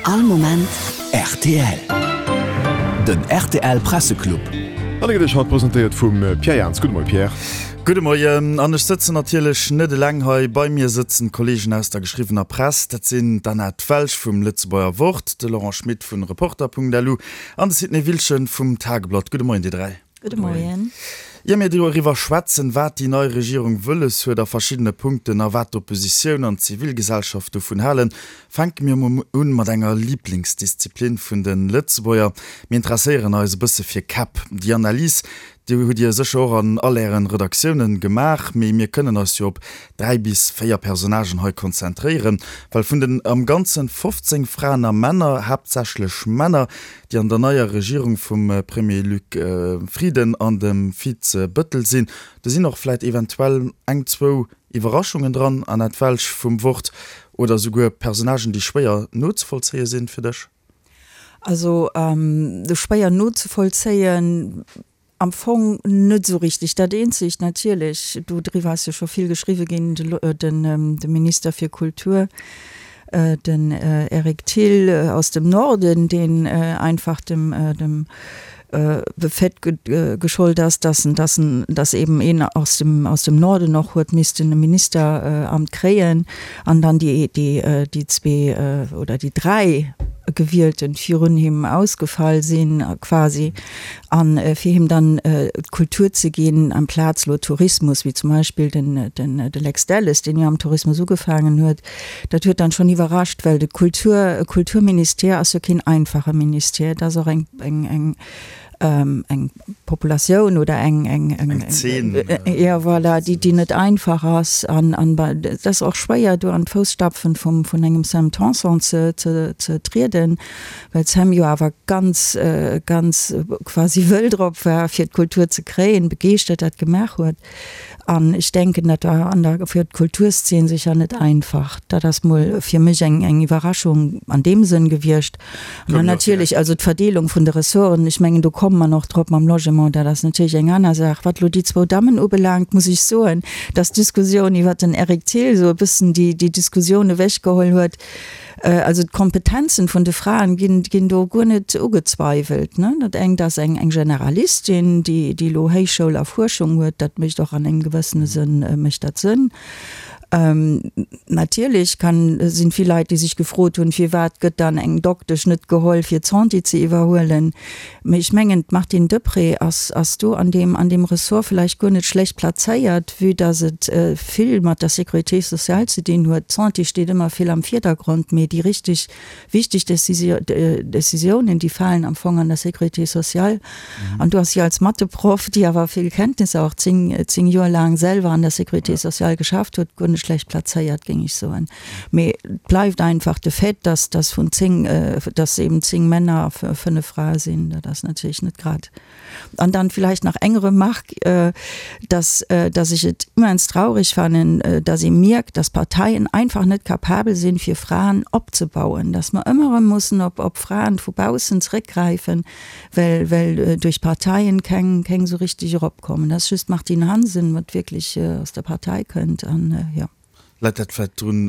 All Moment rtl. Den rtl Presseclub. An e gëtt Iech haut presentéiert vum Pierre Jans. Gudde Moie Pierre. Gudde Moien. An ech sëtzen natierlech net eleng hei. Bei mir sëtzen d'Kolleegen aus der geschriwwener Press. Dat sinn d'Annette Welsch vum Lëtzebuerger Wort, de Laurent Schmit vun Reporter.lu an de Sidney Wilschen vum Tageblatt. Gudde Moien dir 3. Gudde Moien. Ier mir doriwwer schwätzen, wat déi nei Regierung wëlles huet a verschiddene Punkten a wat d'Oppositioun an d'Zivilgesellschaft dovun halen, fänke mir emol un mat enger Liblingsdisziplin vun de Lëtzebuerger. Mir interesséieren eis e bësse fir Käpp. Déi Analys, déi hutt Dir sécher och an all Ären Redaktiounen gemaach, mee mir kënnen eis jo op 3 bis 4 Personnagen hei konzentréieren, well vun den am Ganzen 15 Fraen a Männer, haaptsächlech Männer, déi an der neier Regierung vum Premier Luc Frieden an dem Vize Bëttel sinn. Do sinn och vläit eventuell eng, zwou Iwwerraschungen dran, Annette Welsch vum Wort, oder souguer Personnagen, déi schwéier nozevollzéie sinn fir dech? Also schwéier nozevollzéien Am Fong net esou richteg. Dat eenzegt natierlech, do driwwer ass jo scho vill geschriwwe ginn, de Minister fir Kultur, den Eric Thill aus dem Norden, deen einfach dem dem Fait geschollt ass, dass en dass en dass eben een aus dem aus dem Norden och huet missten e Ministeramt kréien an dann déi déi déi zwee oder déi dräi Gewielten virun him ausgefall sinn quasi. An fir him dann d'Kultur ze ginn amplaz elo Tourismus, wéi zum Beispill den de Lex Delles, deen jo am Tourismus ugefaangen huet, dat huet dann schonn iwwerrascht, well de Kultur, Kulturministère ass jo keen einfache Ministère, et ass och eng, eng, eng, eng Populatioun oder eng, eng, eng, Eng Zeen. jo voilà, déi, déi net einfach ass an, an et ass och schwéier do an d'Fousstapfen vum, vun engem Sam Tanson ze, ze, ze trieden. Well d'Sam jo awer ganz, ganz quasi wëll drop war, fir d'Kultur ze kréien, begeeschtert dat gemaach huet. An ech denken, dat war an der, fir d'Kulturszeen sécher net einfach. Dat ass mol fir mech eng, eng Iwwerraschung an deem Sënn gewiescht. An dann natierlech, also d'Verdeelung vun de Ressorten, ech mengen, do komme mer nach drop mam Logement, dat ass natierlech eng aner Saach. Wat elo déi zwou Dammen ubelaangt, muss ech soen, dass d'Diskussioun iwwert den Eric Thill esou e bëssen déi, déi Diskussioun ewechgeholl huet. Also d'Kompetenzen vun de Fraen ginn, ginn do guer net ugezweiwelt, ne. Dat engt ass eng, eng Generalistin, déi, déi elo Héichschoul a Fuerschung huet, dat mécht och an engem gewëssene Sënn, mécht dat Sënn. Natierlech kann, sinn vill Leit, déi sech gefrot hunn, firwat gëtt dann eng Doktesch net geholl fir d'Santé ze iwwerhuelen. Mee ech mengen, d'Martine Deprez ass, ass do an deem, an deem Ressort vläicht guer net schlecht plazéiert, vue dass et vill mat der Sécurité sociale ze dinn huet. D'Santé steet ëmmer vill am Vierdergrond, mee déi richtig wichteg Décisiounen, déi falen am Fong an der Sécurité sociale. An do ass si als Matheproff, déi awer vill Kenntnisser, och zéng, zéng Joer laang selwer an der Sécurité sociale geschafft huet, guer net schlecht plazéiert, géing ech soen. Mee et bleift einfach de Fait, dass dass vun 10, dass eben 10 Männer a 5 Frae sinn. Dat ass natierlech net grad. An dann vielleicht nach eng Remarque, dass dass ech et immens traurig fannen, dass ee mierkt, dass Parteien einfach net capabel sinn, fir Fraen opzebauen, dass mer ëmmer erëm mussen op op Fraen vu baussen zréckgräifen, well well duerch Parteien keng keng esou richtig eropkommen. Dat ass just d'Martine Hansen, wat wierklech aus der Partei kënnt an jo. Läit dat vläit drun,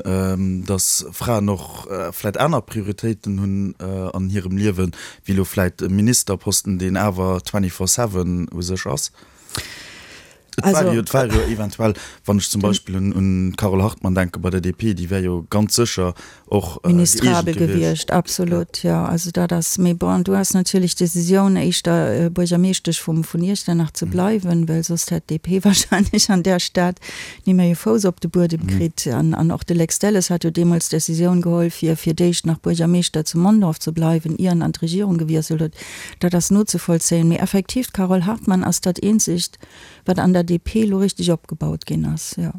datt Fraen och vläit aner Prioritéiten hunn an hirem Liewen, wéi elo vläit e Ministerposten, deen awer twenty-four seven u sech ass? Et war jo, et war jo eventuell, wann ech zum Beispill un d'Carole Hartmann denke bei der DP, déi wär jo ganz sécher och geeegent gewiescht. Ministrabel gewiescht, absolut, jo. Also dat ass, mee bon, du has natierlech d'Decisioun éischter Buergermeeschtesch vum vun Iechternach ze bleiwen, well soss hätt d'DP wahrscheinlech an där Stad ni méi e Fouss op de Buedem kritt. An an och de Lex Delles hat jo deemools d'Decisioun geholl, fir fir d'éischt nach Buergermeeschter zu Mondorf ze bleiwen, ier en an d'Regierung gewiesselt huet. Dat ass nozevollzéien. Mee effektiv, d'Carole Hartmann ass dat eenzegt, wat an der DP elo richteg opgebaut ginn ass, jo.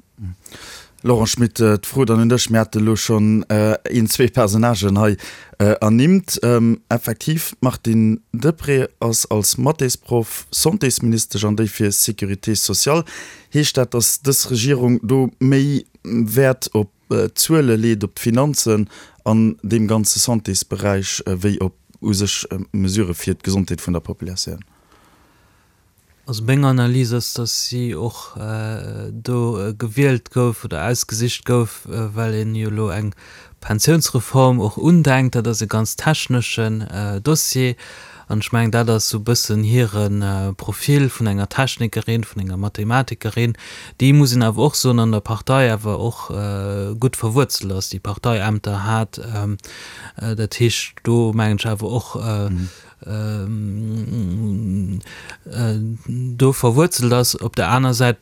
Laurent Schmit, d'Fro dann un dech. Mir hate elo schonn een, zwee Personnagen hei ernimmt. Effektiv, d'Martine Deprez ass als Mathésproff Santésministesch an déi fir Sécurité sociale. Heescht dat, datt dës Regierung do méi Wäert op d'Zuele leet, op d'Finanzen an deem ganze Santésberäich, wéi op u sech Mesurë fir d'Gesondheet vun der Populatioun? Also meng Analys ass, datt si och do gewielt gouf oder ausgesicht gouf, well een jo elo eng Pensiounsreform och undenkt. Dat ass e ganz techneschen Dossier an ech mengen, dat ass esou e bëssen hire Profil vun enger Technikerin, vun enger Mathematikerin, déi, muss een awer och soen, an der Partei awer och gutt verwuerzelt ass, déi Parteiämter hat. Dat heescht, do mengen ech awer och, do verwuerzelt ass. Op der aner Säit,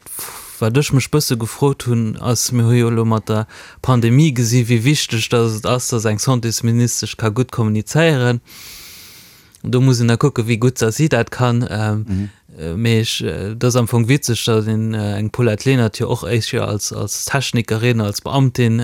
wat ech mech bësse gefrot hunn, ass, mir hu jo elo mat der Pandemie gesi wéi wichteg datt et ass, datt eng Santésministesch ka gutt kommunizéieren. Do muss een da kucken, wéi gutt datt si dat kann. Mee ech, et ass am Fong witzeg, datt een eng Paulette Lenert jo och éischer als als Technikerin, als Beamtin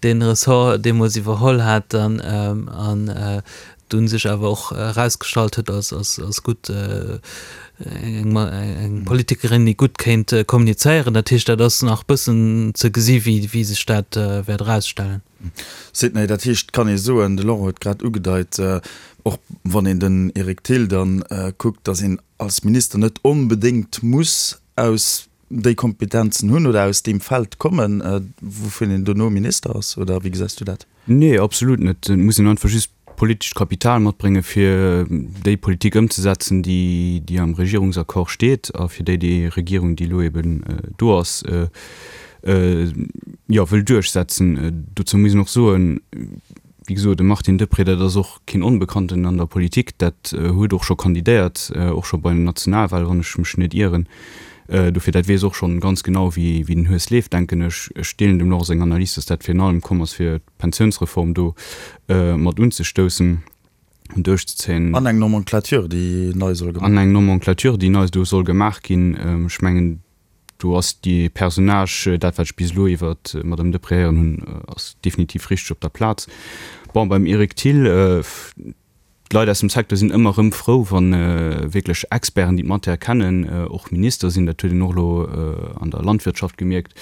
dee Ressort deemools iwwerholl hat dann an dunn sech awer och erausgestallt huet als als als gutt eng eng Politikerin, déi gutt kéint kommunizéieren. Dat heescht, dat ass nach bëssen ze gesi wéi wéi sech dat wäert erausstellen. Sidney, dat heescht, kann ee soen, de Laurent huet grad ugedeit, och wann een den Eric Thill dann kuckt, datt een als Minister net onbedéngt muss aus déi Kompetenzen hunn oder aus deem Feld kommen, wouvun een dono Minister ass, oder wéi gesäis du dat? Nee, absolut net. Et muss een einfach just politescht Kapital matbréngen, fir déi Politik ëmzesetzen, déi, déi am Regierungsaccord steet a fir déi déi Regierung, déi elo eben do ass, jo, wëll duerchsetzen. Dozou muss een och soen, wéi gesot, de Martin Deprez, dat ass och keen Onbekannten an der Politik, dat huet och scho kandidéiert, och scho bei den Nationalwahlen, wann ech mech net ieren. Dofir, dat weess och schonn ganz genau, wéi den Hues leeft, denken ech. Ech deelen dem Laurent seng Analys, dass dat virun allem komm ass, fir d'Pensiounsreform do mat unzestoussen an duerchzezéien. An eng Nomenclature, déi nei soll gemaach ginn. An eng Nomenclature, déi nei do soll gemaach ginn. Ech mengen, do ass dee Personnage, dat wat ech bis elo iwwer d'Madame Deprez héieren hunn, ass definitiv richteg op der Plaz. Bon, beim Eric Thill, D'Leit aus dem Secteur sinn ëmmer erëm frou, wa wierklech Experten, déi d'Matière kennen, och Minister sinn. Dat huet een och elo an der Landwirtschaft gemierkt,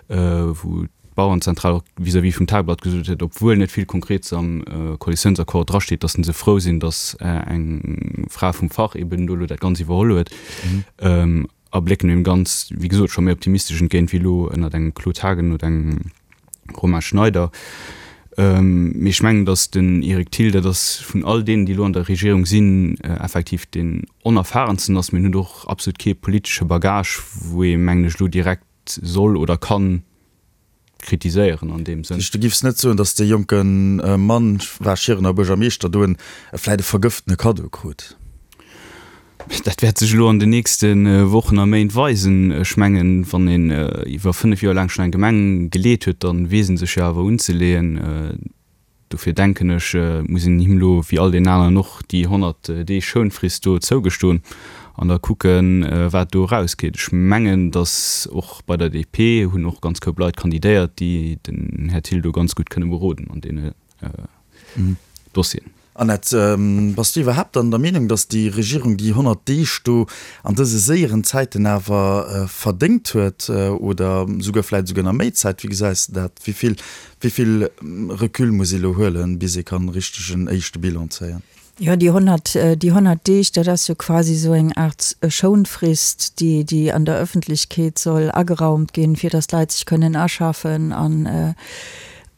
wou d'Bauerenzentral och vis-à-vis vum Tageblatt gesot huet, obwuel net vill Konkretes am Koalitiounsaccord drasteet, datt se frou sinn, datt eng Fra vum Fach eben do elo dat Ganzt iwwerholl huet. A blécken deem Ganz, wéi gesot, scho méi optimistesch entgéint wéi elo ënnert engem Claude Haagen oder engem Romain Schneider. Mee ech mengen, datt den Eric Thill, dat ass vun all deenen, déi elo an der Regierung sinn, effektiv deen onerfahrensten ass. Mee en huet och absolut kee politesche Bagage, wou ee, mengen ech, elo direkt soll oder kann kritiséieren an deem Sënn. Du giffs net soen, datt dee jonke Mann, war Schierener Buergermeeschter, do en vläit e vergëftene Kaddo krut? Dat wäert sech elo an den nächste Wochen a Méint weisen. Ech mengen, wann een iwwer 5 Joer laang schonn eng Gemeng geleet huet, da weess ee sech jo awer unzeleeën. Dofir denken ech, muss een him elo, wéi all deenen aneren och, déi 100 Deeg Schounfrist do zougestoen an da kucken, wat do erausgeet. Ech mengen, datt och bei der DP hunn och ganz Koup Leit kandidéiert, déi den Här Thill do ganz gutt kënne beroden an deene Dossieren. Annette, bass du iwwerhaapt dann der Meenung, datt déi Regierung déi 100 Deeg do an dëse séieren Zäiten awer verdéngt huet oder souguer vläicht esouguer nach méi Zäit? Wéi gesäis de dat? Wéi vill, wéi vill Recul muss ee lo huelen, bis ee kann richteg en éischte Bilan zéien? Jo, déi 100, déi 100 Deeg, dat ass jo quasi esou eng Aart Schounfrist, déi, déi an der Ëffentlechkeet soll ageraumt ginn, fir datt d'Leit sech kënnen aschaffen an,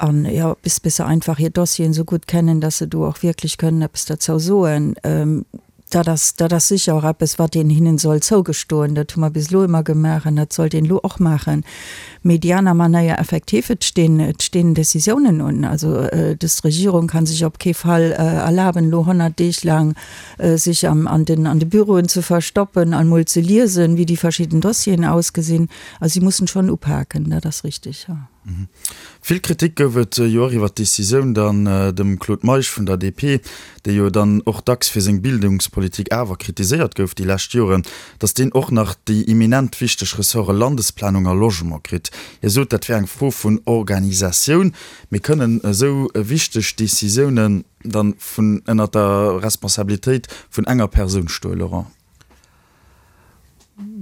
an jo, bis bis se einfach hir Dossieren esou gutt kennen, dass se do och wierklech kënnen eppes derzou soen. Dat ass, dat ass sécher och eppes, wat een hinnen soll zougestoen. Dat hu mer bis elo ëmmer gemaach an dat sollt een elo och maachen. Mee déi aner Manéier, effektiv, et stinn, et stinn Décisiounen un. Also dës Regierung ka sech op kee Fall erlaben, elo 100 Deeg laang sech am, an den, an de Büroen ze verstoppen an emol ze liesen, wéi déi verschidden Dossieren ausgesinn. Also si mussen schonn upaken, dat ass richtig, jo. Vill Kritik gouf et jo och iwwer d'Decisioun dann dem Claude Meisch vun der DP, dee jo dann och dacks fir seng Bildungspolitik awer kritiséiert gouf déi lescht Joren, datt deen och nach déi eminent wichteg Ressorte Landesplanung a Logement kritt. Hie sot, dat wär eng Fro vun Organisatioun. Mee kënnen esou wichteg Decisiounen dann vun ënner der Responsabilitéit vun enger Persoun stoen, Laurent?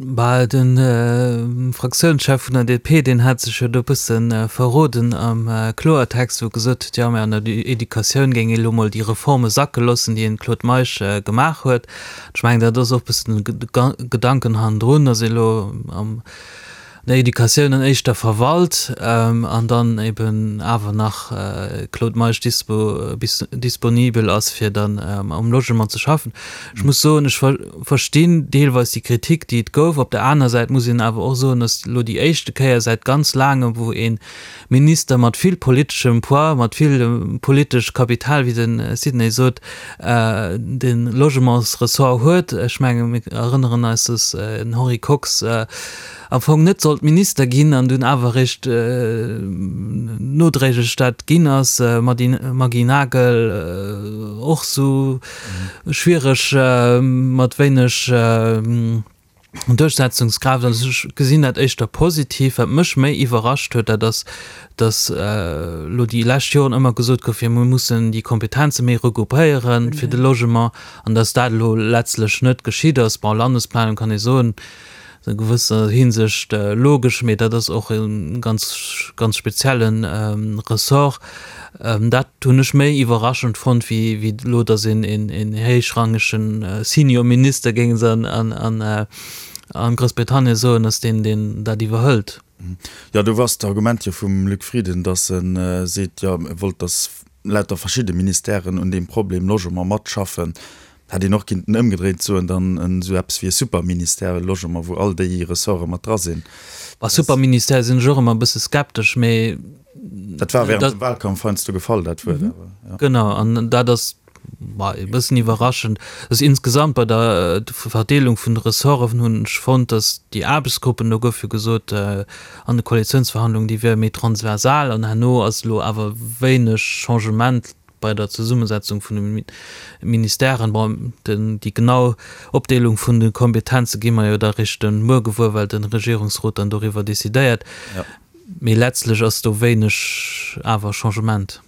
Bah, de Fraktiounschef vun der DP, deen hat sech jo do e bësse verroden am Kloertext, wou e gesot huet, jo, mä an der Educatioun géing ee lo mol déi Reforme sacke loossen, déi den Claude Meisch gemaach huet. Ech mengen, dat ass och e bëssen de Gedanken hannendrun, datt ee lo am der Educatioun an éischter verwalt an dann eben awer nach Claude Meisch dispo disponibel ass fir dann um Logement ze schaffen. Ech muss soen, ech verstinn deelweis déi Kritik déi et gouf. Op der aner Säit muss een awer och soen, datt elo déi éischte Kéier säit ganz laangem wou ee Minister mat vill politeschem Poids, mat vill politesch Kapital, wéi de Sidney sot, de Logementsressort huet. Ech menge mir erënneren eis, datt den Henri Kox am Fong net sollt Minister ginn an dunn awer eréischt nodréiglech dat ginn ass. Maggy Nagel och esou schwiereg mat wéineg Duerchsetzungskraaft. Also ech gesinn dat éischter positiv. Wat mech méi iwwerrascht huet, dat ass, datt elo déi lescht Joren ëmmer gesot gouf, jo mir mussen déi Kompetenze méi regroupéiere fir de Logement an datt dat elo letztlech net geschitt ass. Bon, Landesplanung kann ee soen, a gewësser Hinsicht logesch, mee dat ass och e ganz, ganz spezielle Ressort. Dat hunn ech méi iwwerraschend fonnt, wéi wéi elo, datt een een héichrangege Senior Minister, géinge se an Groussbritannien soen, ass, deen deen dat iwwerhëlt. Jo, do ass d'Argument jo vum Luc Frieden, datt e seet, jo, e wollt, datt lauter verschidde Ministèren un deem Problem Logement matschaffen. Hätt een och kinnten ëmgedréint soen, dann esou eppes wéi e Superministère Logement, wou all déi Ressorte mat dra sinn. Bei Superministère sinn ech och ëmmer e bësse skeptesch, mee. Dat war während dem Wahlkampf heiansdo gefall, dat Wuert awer, jo. Genau, an dat ass e bëssen iwwerraschend. Dass insgesamt bei der Verdeelung vun de Ressorten hunn ech fonnt, dass déi Aarbechtsgruppen, do gouf jo gesot an de Koalitiounsverhandlungen, déi wiere méi transversal an herno ass elo awer wéineg Changement bei der Zesummesetzung vun de Ministèren. Bon, déi genau Opdeelung vun de Kompetenze gi mer jo da réischt de Muer gewuer, well de Regierungsrot dann doriwwer decidéiert. Mee letztlech ass do wéineg awer Changement.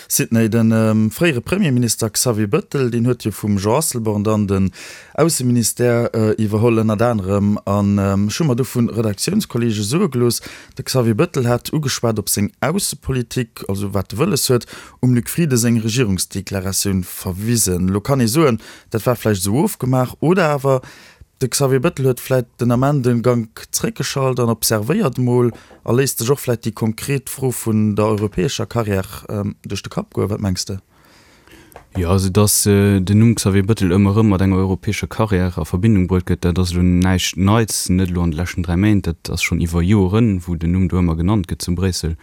Sidney, De fréiere Premierminister Xavier Bëttel, deen huet jo vum Jean Asselborn dann den Ausseministère iwwerholl ënnert anerem. An ech hu mer do vu Redaktiounskolleege soe gelooss, de Xavier Bëttel hätt ugeschwat op seng Aussepolitik, also wat e wëlles huet, um Luc Frieden seng Regierungsdeklaratioun verwisen. Elo kann ee soen, dat war vläicht esou ofgemaach, oder awer de Xavier Bettel huet vläicht den Ament e Gank zréckgeschalt an observéiert emol a léisst sech och vläicht déi konkret Fro vun der europäescher Carrière duerch de Kapp goen. Wat mengs de? Jo, also datt den Numm Xavier Bettel ëmmer erëm mat enger europäescher Carrière a Verbindung bruet gëtt, dat ass elo näischt Neits, net elo an de leschten 3 Méint, dat ass schonn iwwer Joren, wou den Numm do ëmmer genannt gëtt zu Bréissel.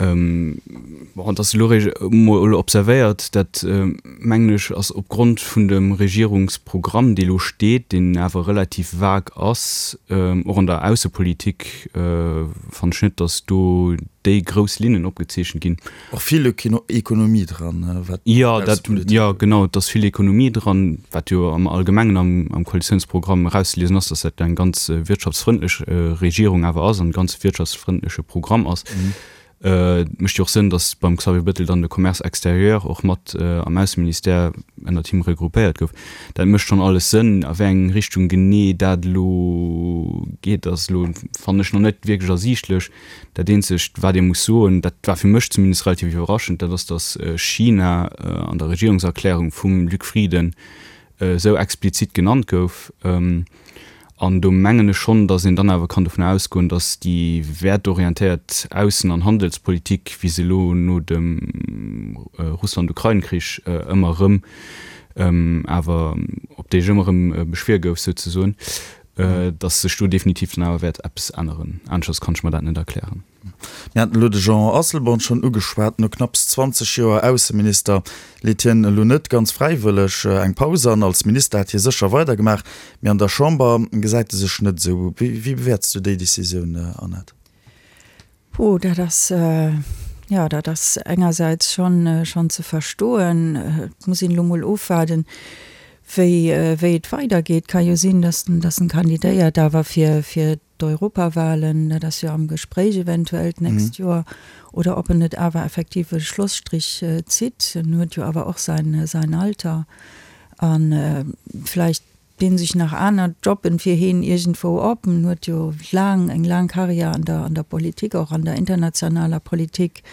Bon, dass elo réischt emol observéiert, dat mengen ech ass opgrond vun dem Regierungsprogramm, dee lo steet, deen awer relativ vague ass, och an der Aussepolitik fannen ech net, dass do déi grouss Linnen opgezeechent ginn. Och vill Ekonomie dran, wat d'Aussepolitik ugeet. Jo, genau, et ass vill Ekonomie dran, wat jo am Allgemengen am Koalitiounsprogramm erauszeliesen ass, dass dat eng ganz wirtschaftsfrëndlech Regierung awer ass an e ganz wirtschaftsfrëndleche Programm ass. Et mécht jo och Sënn, dass beim Xavier Bettel dann de Commerce extérieur och mat am Ausseministère ënnert him regroupéiert gouf. Dat mécht schonn alles Sënn. A wéi eng Richtung genee dat elo geet, ass elo, fannen ech, nach net wierklech ersiichtlech. Dat eenzegt, wat ee muss soen, dat war fir mech zumindest relativ iwwerraschend, dat ass, datt China an der Regierungserklärung vum Luc Frieden esou explizit genannt gouf. An do mengen ech schonn, datt een dann awer kann dovun ausgoen, datt déi wäertorientéiert Aussen an Handelspolitik, wéi se elo no dem Russland-Ukrain-Krich ëmmer erëm awer, op déi ech ëmmer erëm beschwier gouf souzesoen, datt sech do definitiv dann awer wäert eppes änneren. Aneschters kann ech mer dat net erklären. Mir haten elo de Jean Asselborn schonn ugeschwat. No knapps 20 Joer Ausseminister leet hien elo net ganz fräiwëlleg eng Paus an. Als Minister hätt hie sécher weidergemaach, mee an der Chamber gesäit e sech net esou. Wéi bewäerts du déi Decisioun, Annette? Puh, dat ass, jo, dat ass engersäits schonn, schonn ze verstoen. Et muss een elo mol ofwaarden, wéi, wéi et weidergeet. Ka jo sinn, datt en, datt en kandidéiert, awer fir, fir d'Europawahlen, dat ass jo am Gespréich eventuell d'nächst Joer, oder ob en net awer effektiv e Schlusstrich zitt. En huet jo awer och säin, säin Alter a vläicht. dinn sech nach aner Jobben fir heen iergendwou op. En huet jo laang, eng laang Karriär an der, an der Politik, och an der internationaler Politik.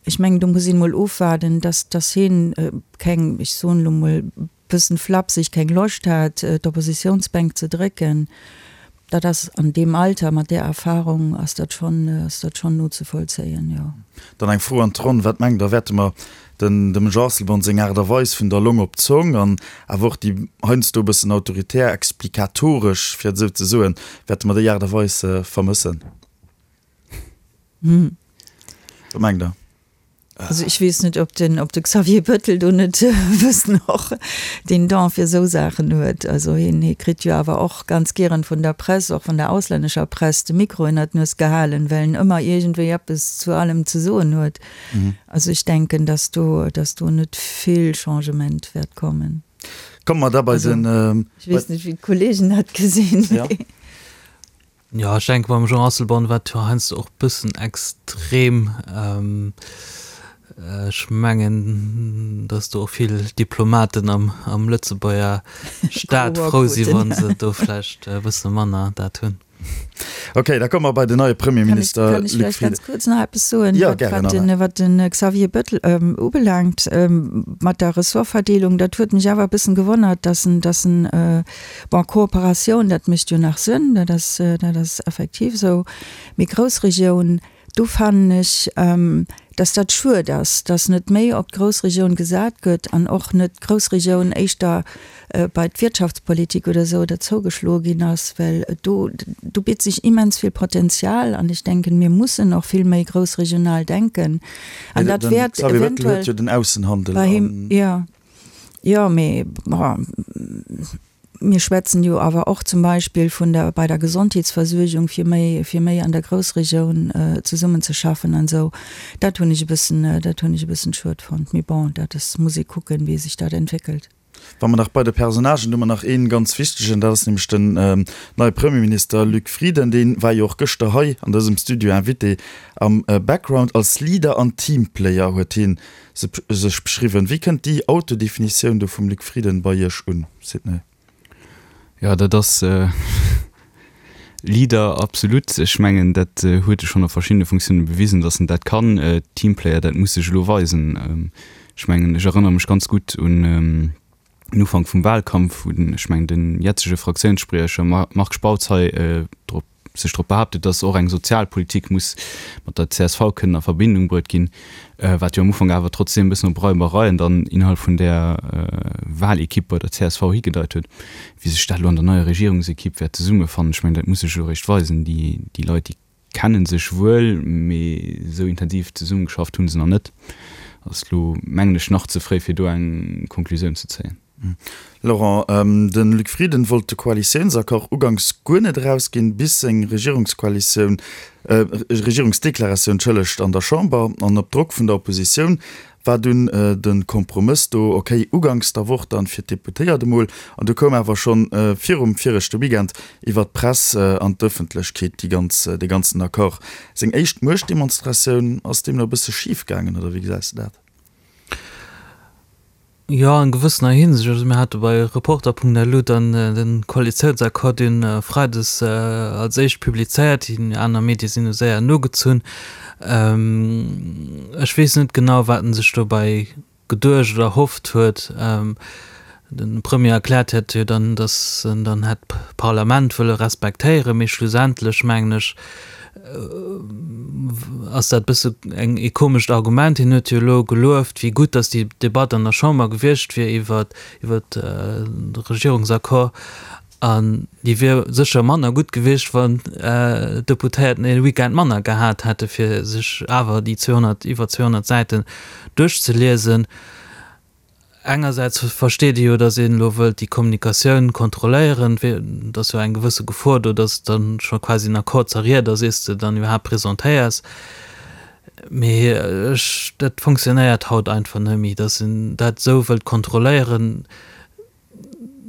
Ech mengen, do muss een emol ofwaarden, dass, dass heen keng, ech soen elo emol bëssen flapseg, keng Loscht hat, d'Oppositiounsbänk ze drécken. Dat ass an deem Alter, mat där Erfahrung, ass dat schonn, ass dat schonn nozevollzéien, jo. Dann eng Fro an d'Ronn, Wat mengt Der, wäerte mer den dem Jean Asselborn seng Aart a Weis vun der Long op d'Zong an awer och déi heiansdo e bëssen autoritär, explikatoresch, fir et esou ze soen, wäerte mer déi Aart a Weis vermëssen? Wat mengt Der? Also ech weess net, ob den, ob de Xavier Bettel do net e bëssen och den Don fir esou Saachen huet. Also hien, hie kritt jo awer och ganz gieren vun der Press, och vun der auslännescher Press, de Mikro ënner d'Nues gehalen, well en ëmmer iergendwéi eppes zu allem ze soen huet. Also ech denken, dass do, dass do net vill Changement wäert kommen. Komme mer da bei den. Ech weess net, wéi d'Kollegen dat gesinn. Jo, ech denke beim Jean Asselborn war et jo heiansdo och bëssen extrem. Ech mengen, datt do och vill Diplomaten am am Lëtzebuerger Staat frou si wa se do vläicht e bësse manner dat hunn. Ok, da komme mer bei den neie Premierminister Luc Frieden. Kann ech vläicht ganz kuerz nach eppes soen, Jo, gären, Anna. wat de Xavier Bettel ubelaangt mat der Ressortverdeelung? Dat huet mech awer e bëssen gewonnert, datt en, datt en Bon, Kooperatioun, dat mécht jo nach Sënn, dat ass, dat ass effektiv esou. Mee Groussregioun, do fannen ech, dass dat schued ass, dass net méi op d'Groussregioun gesat gëtt an och net d'Groussregioun éischter bei d'Wirtschaftspolitik oder esou derzougeschloe ginn ass, well do, do bitt sech immens vill Potenzial an ech denken, mir mussen och vill méi groussregional denken an dat wäert eventuell bei him, jo. Jo, mee bon, mir schwätzen jo awer och zum Beispill vun der, bei der Gesondheetsversuergung, fir méi, fir méi an der Groussregioun zesummenzeschaffen an esou. Dat hunn ech e bëssen, dat hunn ech e bëssen schued fonnt. Mee bon, dat ass, muss ee kucken, wéi sech dat entwéckelt. Wa mer nach bei de Personnagen, do hu mer nach ee ganz wichtegen, dat ass nämlech den neie Premierminister Luc Frieden. Dee war jo och gëschter hei an dësem Studio Invité am Background. Als Leader an Teamplayer huet hie sech beschriwwen. Wéi kënnt déi Autodefinitioun do vum Luc Frieden bei Iech un, Sidney? Jo, dat ass Leader, absolut. Ech mengen, dat huet e schonn a verschiddene Funktiounen bewisen, datt en dat kann. Teamplayer, dat muss sech elo weisen. Ech mengen, ech erënnere mech ganz gutt un den Ufank vum Wahlkampf, wou den, ech mengen, den jetzege Fraktiounsspriecher Marc Spautz hei drop sech drop behaaptet, datt och eng Sozialpolitik muss mat der csv kënnen a Verbindung bruet ginn, wat jo am Ufank awer trotzdeem e bëssen op Reibereien dann innerhalb vun där Wahlequipe bei der csv higedeit huet. Wéi sech dat elo an der neier Regierungsequipe wäert zesummefannen, ech mengen, dat muss sech elo eréischt weisen. Déi, déi Leit, déi kenne sech wuel, mee esou intensiv zesummegeschafft hu se nach net. Ass elo, mengen ech, nach ze fréi, fir do eng Konklusioun ze zéien. Laurent, de Luc Frieden wollt de Koalitiounsaccord uganks guer net erausginn, bis seng Regierungskoalitioun, Regierungsdeklaratioun, entschëllegt, an der Chamber. An op Drock vun der Oppositioun war dunn de Kompromëss do, ok, uganks der Woch dann fir d'Deputéiert emol. An du koum awer schonn virum viregte Weekend iwwer d'Press an d'Ëffentlechkeet déi ganz, dee ganzen Accord. Seng éischt Muechtdemonstratioun ass deemno e bësse schif gaangen, oder wéi gesäis de dat? Jo, an gewëssener Hinsicht. Also mir hate bei Reporter.lu dann de Koalitiounsaccord dunn freides als éischt publizéiert. Déi aner Medie sinn du séier nogezunn. Ech weess net genau, wat en sech dobäi geduecht oder erhofft huet. De Premier erkläert hätt jo dann, datt en dann hätt d'Parlament wëlle respektéieren, mee schlussendlech mengen ech, ass dat bësse eng ee komescht Argument. Hien huet jo elo gelueft, wéi gutt datt déi Debatt an der Chamber gewiescht wier iwwer iwwer de Regierungsaccord. An déi wier sécher manner gutt gewiescht, wann d'Deputéierten ee Weekend manner gehat hätte fir sech awer déi 200, iwwer 200 Säiten duerchzeliesen. Engersäits versteet ee jo, datt een elo wëllt déi Kommunikatioun kontrolléieren, et ass jo eng gewësse Gefor do, datt et dann scho quasi en Accord zerriet ass, iers de dann iwwerhaapt presentéiers. Mee ech, dat fonctionnéiert haut einfach net méi, datt een dat esou wëllt kontrolléieren.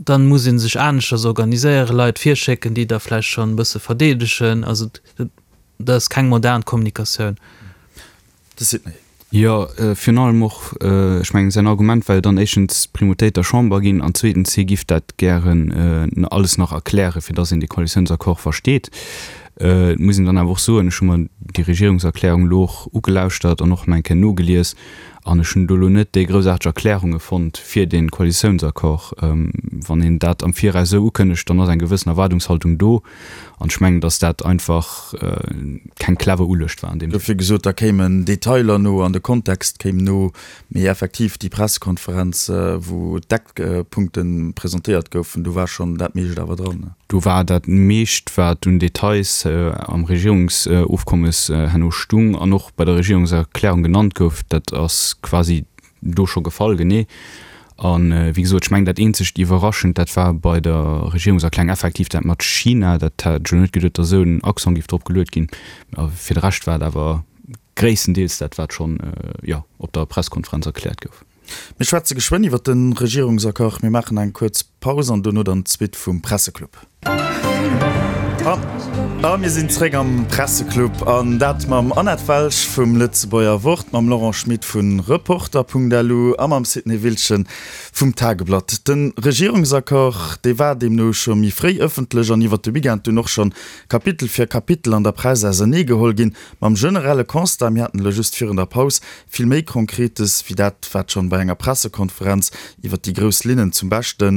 Dann muss ee sech aneschters organiséieren, Leit virschécken, déi da vläicht schonn e bësse verdeedegen. Also dat ass keng modern Kommunikatioun. De Sidney. Jo, virun allem och, ech mengen, säin Argument war jo dann éischtens d'Primautéit der Chamber ginn an zweetens, hie giff dat gären alles nach erklären, fir dass een dee Koalitiounsaccord versteet. Et muss een dann awer och soen, ech hu mer déi Regierungserklärung elo och ugelauschtert an och nach eng Kéier nogelies an ech hunn do elo net déi groussaarteg Erklärunge fonnt fir dee Koalitiounsaccord. Wann een dat am Viraus esou ukënnegt, dann ass eng gewëssen Erwaardungshaltung do an ech mengen, datt dat einfach keng clever Uluecht war an deem Sënn. Dofir gesot, da kéimen Detailer no an de Kontext kéim no. Mee effektiv, déi Pressekonferenz, wou d'Eckpunkte presentéiert goufen, do war schonn dat meescht awer dran. Do war dat meescht, wat un Details am Regierungsofkommes herno stung an och bei der Regierungserklärung genannt gouf, dat ass quasi do scho gefall, genee. A wéi gesot, ech mengen, dat eenzegt Iwwerraschend, dat war bei der Regierungserklärung effektiv dat mat China. Dat hat ech elo net geduet, datt esou en Accent géif drop geluet ginn. A fir de Rescht war et awer Gréisstendeels dat, wat schonn, jo, op der Presskonferenz erkläert gouf. Mir schwätze geschwënn iwwer de Regierungsaccord. Mir maachen eng kuerz Paus an dono dann d'Suite vum Presseclub. A mir sinn zréck am Presseclub an dat mam Annette Welsch vum Lëtzebuerger Wort, mam Laurent Schmit vu Reporter.lu a mam Sidney Wiltgen vum Tageblatt. De Regierungsaccord, dee war deemno scho méi fréi ëffentlech an iwwer de Weekend dunn och schonn Kapitel fir Kapitel an der Press auserneegeholl ginn. Mam generelle Constat, mir haten elo just virun der Paus vill méi Konkretes wéi dat, wat schonn bei enger Pressekonferenz iwwert déi grouss Linnen zum Beschte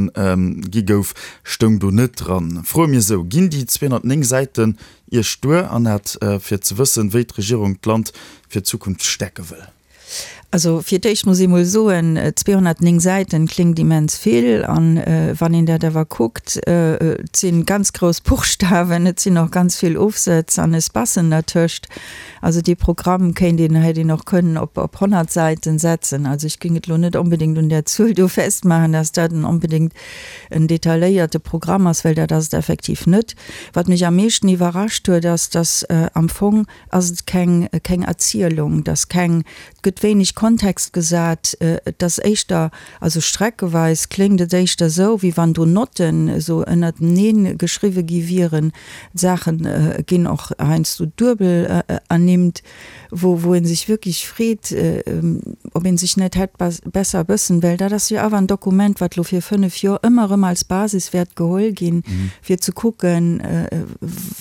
gi gouf, stoung do net dran. Froe mir esou, Ginn déi 209 Säiten Iech duer, Annette, fir ze wëssen, wéi d'Regierung d'Land fir d'Zukunft stäerke wëll? Also fir d'éischt muss ee mol soen, 209 Säiten kléngt immens vill. An wann een dat awer kuckt, et si ganz grouss Buchstawen, et sinn och ganz vill Ofsëtz an Espacen dertëscht. Also dee Programm kéint een, hätt een och kënnen op op 100 Säiten setzen. Also ech géing et elo net onbedéngt un där Zuel do festmaachen, dass dat en onbedéngt en detailléierte Programm ass, well dat ass et effektiv net. Wat mech am meeschten iwwerrascht huet, ass, dass am Fong, ass et keng, keng Erzielung, et ass keng, et gëtt wéineg Kontext gesat, et ass éischter, also streckeweis kléngt et éischter esou, wéi wann do Notten esou ënnertenee geschriwwe gi wieren, d'Saache ginn och heiansdo duebel ernimmt, wou, wou ee sech wierklech freet, ob ee sech net hätt besser e bëssen, well dat ass jo awer en Dokument, wat elo fir fënnef Joer ëmmer erëm als Basis wäert geholl ginn, fir ze kucken,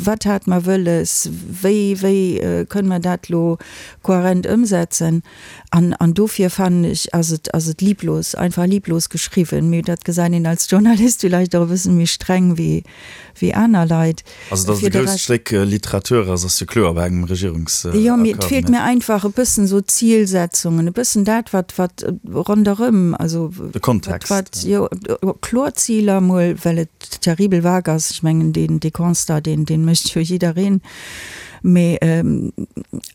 wat hate mer wëlles, wéi, wéi kënne mer dat elo kohärent ëmsetzen. An, an dofir fannen ech, ass et, ass et lieblos, einfach lieblos geschriwwen. Mee dat gesäit een als Journalist villäicht och e bëssen méi streng wéi, wéi aner Leit. Also datt et e grousst Stéck Literatur ass, ass jo kloer bei engem Regierungsaccord. Jo, mee et feelt mir einfach e bëssen esou Zilsetzungen, e bëssen dat, wat, wat ronderëm, also. De Kontext. Wat, jo, kloer Ziler emol, well et terribel vague ass. Ech mengen, deen, dee Constat, deen, deen mécht jo jiddereen. Mee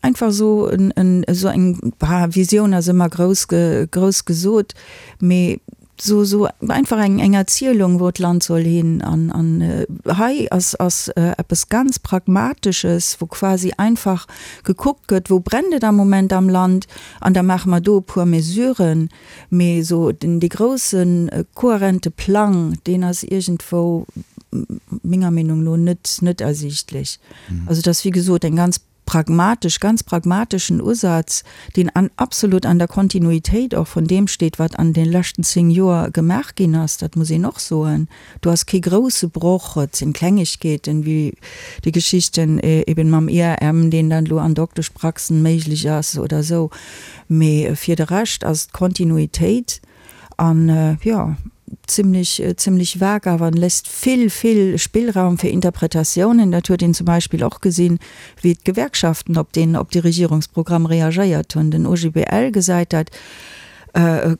einfach esou en, en, esou eng, bah, Visioun ass ëmmer grouss, grouss gesot, mee Sou, sou einfach eng, eng Erzielung, wou d'Land soll hin. An, an hei ass, ass eppes ganz Pragmatesches, wou quasi einfach gekuckt gëtt, wou brennt et am Moment am Land, an da maache mer do e puer Mesuren. Mee esou den, dee groussen, kohärente Plang, deen ass iergendwou menger Meenung no net, net ersiichtlech. Also et ass, wéi gesot, eng ganz pragmatesch, ganz pragmateschen Usaz, deen an absolut an der Kontinuitéit och vun deem steet, wat an de leschten 10 Joer gemaach ginn ass, dat muss een och soen. Do ass kee grouse Broch, et sinn Klengegkeeten, wéi déi Geschichten eben mam IRM, deen dann elo an Dokteschpraxen méiglech ass oder esou, mee fir de Rescht ass d'Kontinuitéit An jo, zimlech, zimlech vag awer en léisst vill, vill Spillraum fir Interpretatiounen. Dat huet een zum Beispill och gesinn, wéi d'Gewerkschaften op deen, op dee Regierungsprogramm reagéiert hunn. Den OGBL gesäit dat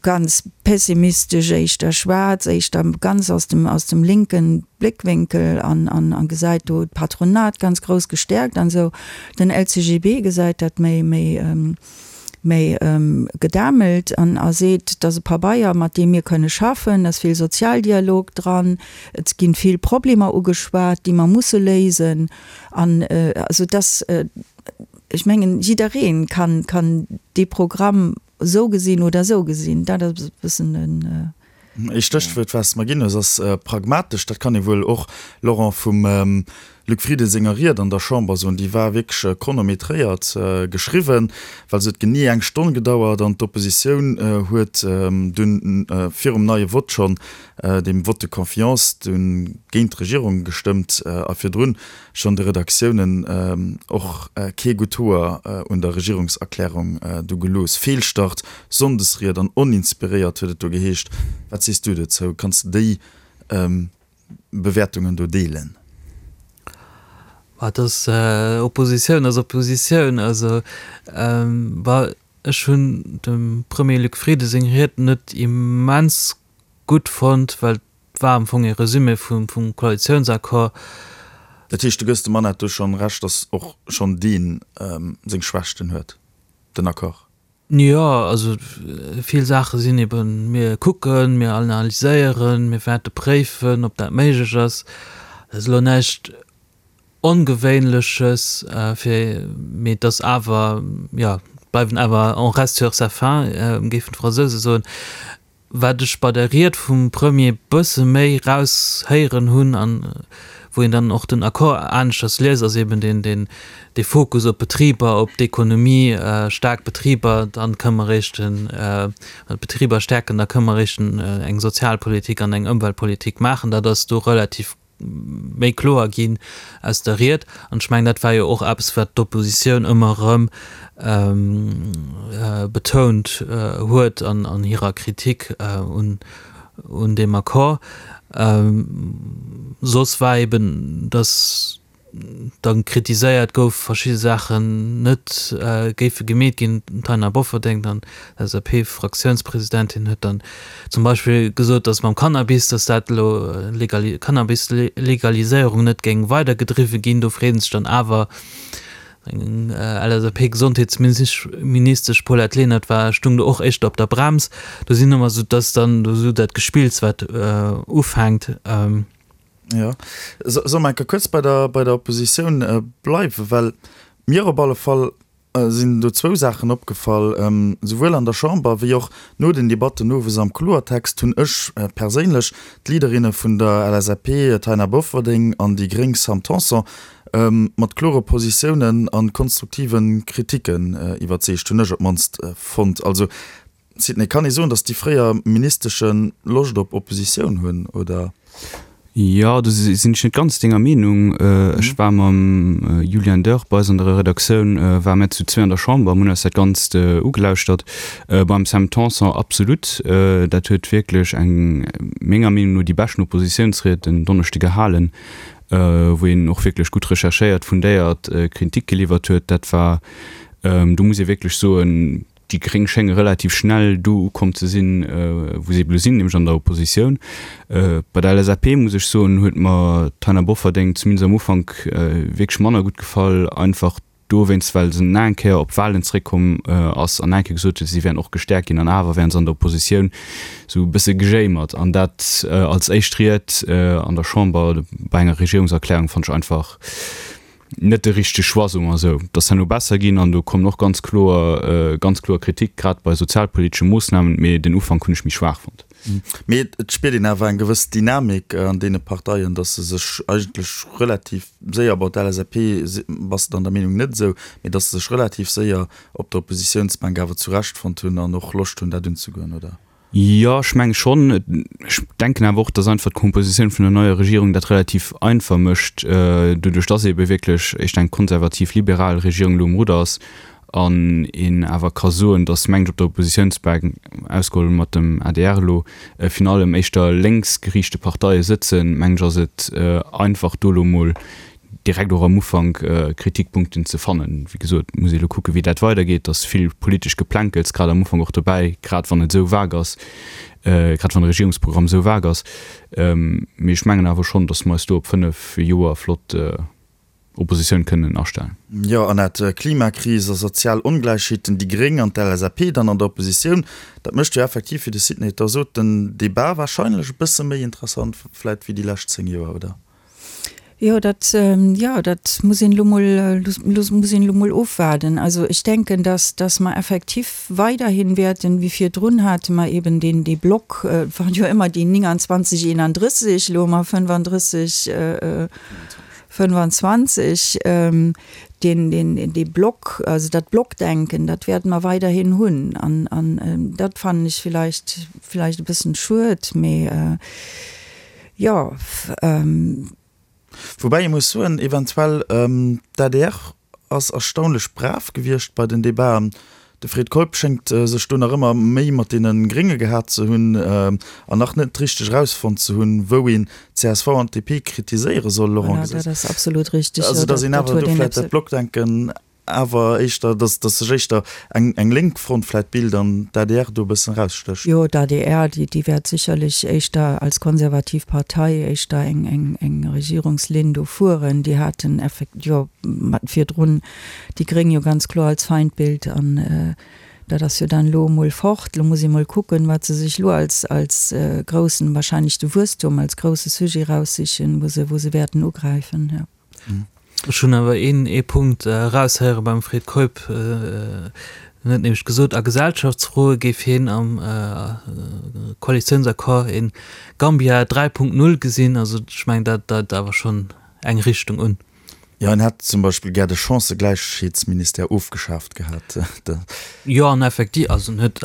ganz pessimistesch, éischter schwaarz, éischter ganz aus dem, aus dem linken Bléckwénkel an, an, a gesäit do d'Patronat ganz grouss gestäerkt an esou. Den LCGB gesäit dat méi, méi, méi gedämmelt an a seet, et ass e Pabeier, mat deem mir kënne schaffen, et ass vill Sozialdialog dran, et ginn vill Problemer ugeschwat, déi mer musse léisen. An also et ass, ech mengen, jidderee kann kann dee Programm esou gesinn oder esou gesinn. Dat ass e bëssen den. Ee Stéchwuert, wat s de mer ginn hues, ass pragmatesch. Dat kann ee wuel och, Laurent, vum. Luc Frieden senger Ried an der Chamber soen. Déi war wierklech chronometréiert geschriwwen, well se huet genee eng Stonn gedauert an d'Oppositioun huet dunn virum neie Vott schonn, deem Vote de confiance, dunn géint d'Regierung gestëmmt a virdrun schonn de Redaktiounen och kee gutt Hoer un der Regierungserklärung du gelooss. Feelstart, Sonndesried an oninspiréiert huet et do geheescht. Wat sees du dozou? Kanns de déi Bewäertungen do deelen? Et ass Oppositioun ass Oppositioun. Also ech hunn dem Premier Luc Frieden seng Ried net immens gutt fonnt, well et war am Fong ee Resumé vum Koalitiounsaccord. Dat heescht, du gëss dem Annette do schonn Recht, datt och schonn dee seng Schwächten huet, den Accord? Jo, also vill Saache sinn eben, mir kucken, mir analyséieren, mir wäerte préifen, ob dat méiglech ass. Dat ass elo näischt Ongewéinleches, fir, mee et ass awer, jo, bleiwen awer, on reste sur sa faim, géifen d'Fransouse soen. Wat ech bei der Ried vum Premier bësse méi raushéieren hunn an wou een dann och den Accord aneschters liest, ass eben deen, deen, dee Fokus op d'Betriber, op d'Ekonomie, staark Betriber, dann kënne mer eréischt den, d'Betriber stäerken, da kënne mer eréischt eng Sozialpolitik an eng Ëmweltpolitik maachen. Dat ass do relativ méi kloer ginn aus der Ried. An ech mengen, dat war jo och eppes, wat d'Oppositioun ëmmer erëm betount huet an hirer Kritik un deem Accord. Soss war eben, datt da kritiséiert gouf, verschidde Saachen net géife gemeet ginn. D'Taina Bofferding, dann LSAP-Fraktiounspresidentin, huet dann zum Beispill gesot, datt mam Cannabis, datt dat elo Cannabis-Legaliséierung net géing weidergedriwwe ginn. Do freet ee sech dann awer, eng LSAP-Gesondheetsministesch Paulette Lenert war, stung do och éischter op der Brems. Do sinn ëmmer esou, dass dann do esou dat Gespills, wat ufänkt. Jo. Solle mer eng Kéier kuerz bei der, bei der Oppositioun bleiwen? Well mir op alle Fall sinn do zwou Saachen opgefall, Souwuel an der Chamber wéi och no den Debatten owes am Kloertext hunn ech perséinlech d'Leaderinne vun der LSAP Taina Bofferding an déi gréng Sam Tanson mat klore Positiounen a konstruktive Kriticken iwwerzeegt, hunn ech op d'mannst fonnt. Also Sidney, kann ee soen, datt déi fréier Ministesche Loscht op Oppositioun hunn, oder? Jo, do sinn ech net ganz denger Meenung. Ech war mam Julian Dörr bei eis an der Redaktioun, ware mir zu zwee an der Chamber, mir hunn eis dat Ganzt ugelauschtert. Beim Sam Tanson absolut, dat huet wierklech eng, menger Meenung no, déi beschten Oppositiounsried en Donneschde gehalen, wou een och wierklech gutt recherchéiert, fundéiert Kritik geliwwert huet. Dat war, do muss ee wierklech soen, Déi Gréng schénge relativ schnell do ukomm ze sinn, wou se ebe lo sinn, nämlech an der Oppositioun. Bei der LSAP, muss ech soen, huet mer d'Taina Bofferding zumindest am Ufank wierklech manner gutt gefall, einfach dowéinst, well se nach eng Kéier op d'Wahlen zeréckkomm ass an nach eng Kéier gesot huet, si wären och gestäerkt ginn an awer wären se an der Oppositioun esou e bësse gejéimert. An dat als éischt Ried an der Chamber bei enger Regierungserklärung fannt ech einfach, net de richtege Choix, soe mer esou. Et ass herno besser ginn an do kommen och ganz kloer, ganz kloer Kritik, grad bei sozialpolitesche Moossnamen, mee den Ufank hunn ech méi schwaach fonnt. Mee et spiert een awer eng gewëss Dynamik an deene Parteien, datt se sech eigentlech relativ séier, bon d'LSAP bass de dann der Meenung net esou, mee datt se sech relativ séier op der Oppositiounsbänk awer zurechtfonnt hunn an och Loscht hunn dat unzegoen, oder? Jo, ech menge schonn. Ech denken awer och, datt einfach d'Kompositioun vun der neier Regierung dat relativ einfach mécht, doduerch datt eebe wierklech éischter eng konservativ-liberal Regierung elo um Rudder ass an een awer ka soen, datt, mengen ech, op der Oppositiounsbänk, ausgeholl mat dem adr elo, virun allem éischter lénksgeriichte Parteie sëtzen, mengen ech, ass et einfach do elo emol direkt och am Ufank Kritikpunkten ze fannen. Wéi gesot, muss ee elo kucken, wéi dat weidergeet. Et ass vill politesch Geplänkels grad am Ufank och dobäi, grad wann et esou vague ass, grad wann de Regierungsprogramm esou vague ass. Mee ech mengen awer schonn, datt mer eis do op 5 Joer flott Oppositioun kënnen astellen. Jo, Annette, Klimakris a sozial Ongläichheeten, déi Gréng an d'LSAP dann an der Oppositioun, dat mécht jo effektiv, wéi de Sidney et da sot, den Debat warscheinlech e bësse méi interessant vläit wéi déi lescht 10 Joer, oder? Jo, dat, jo, dat muss een elo mol, muss een elo mol ofwaarden. Also ech denken, dass, dass mer effektiv weiderhin wäerten, wéi virdrun hate mer eben deen, dee Block, et waren jo ëmmer déi 29, 31, elo hu mer 35, 25, deen, deen, dee Block, also dat Blockdenken, dat wäerte mer weiderhin hunn. An, an dat fannen ech villäicht, villäicht e bëssen schued, mee jo. Woubäi ee muss soen, eventuell, d'ADR ass erstaunlech brav gewiescht bei den Debaten. De Fred Keup schéngt sech do nach ëmmer méi mat deene Grénge gehat ze hunn an nach net richteg erausfonnt ze hunn, wou een d'CSV an d'DP kritiséiere soll, Laurent Voilà, dat ass absolut richteg. Also datt een awer do vläicht dat Blockdenken awer éischter, datt datt sech éischter eng eng lénk Front vläicht bilt an d'ADR do e bëssen erausstécht. Jo, d'ADR, déi déi wäert sécherlech éischter als konservativ Partei éischter eng eng eng Regierungslinn do fueren. Déi haten effekt jo mat virdrun déi Gréng jo ganz kloer als Feindbild an dat ass jo dann elo emol fort. Elo muss ee mol kucken, wat se sech elo als als groussen, wahrscheinlech de Wuesstum als grousse Sujet eraussichen, wou se wou se wäerten ugräifen, jo. Ech hunn awer een ee Punkt eraushéiere beim Fred Keup, en huet nämlech gesot, a Gesellschaftsfroe géif hien am Koalitiounsaccord een Gambia 3.0 gesinn. Also ech mengen, dat deit awer schonn eng Richtung un. Jo, en hätt zum Beispill gär de Chancëgläichheetsministère ofgeschaaft gehat. Jo, an effektiv, also en huet,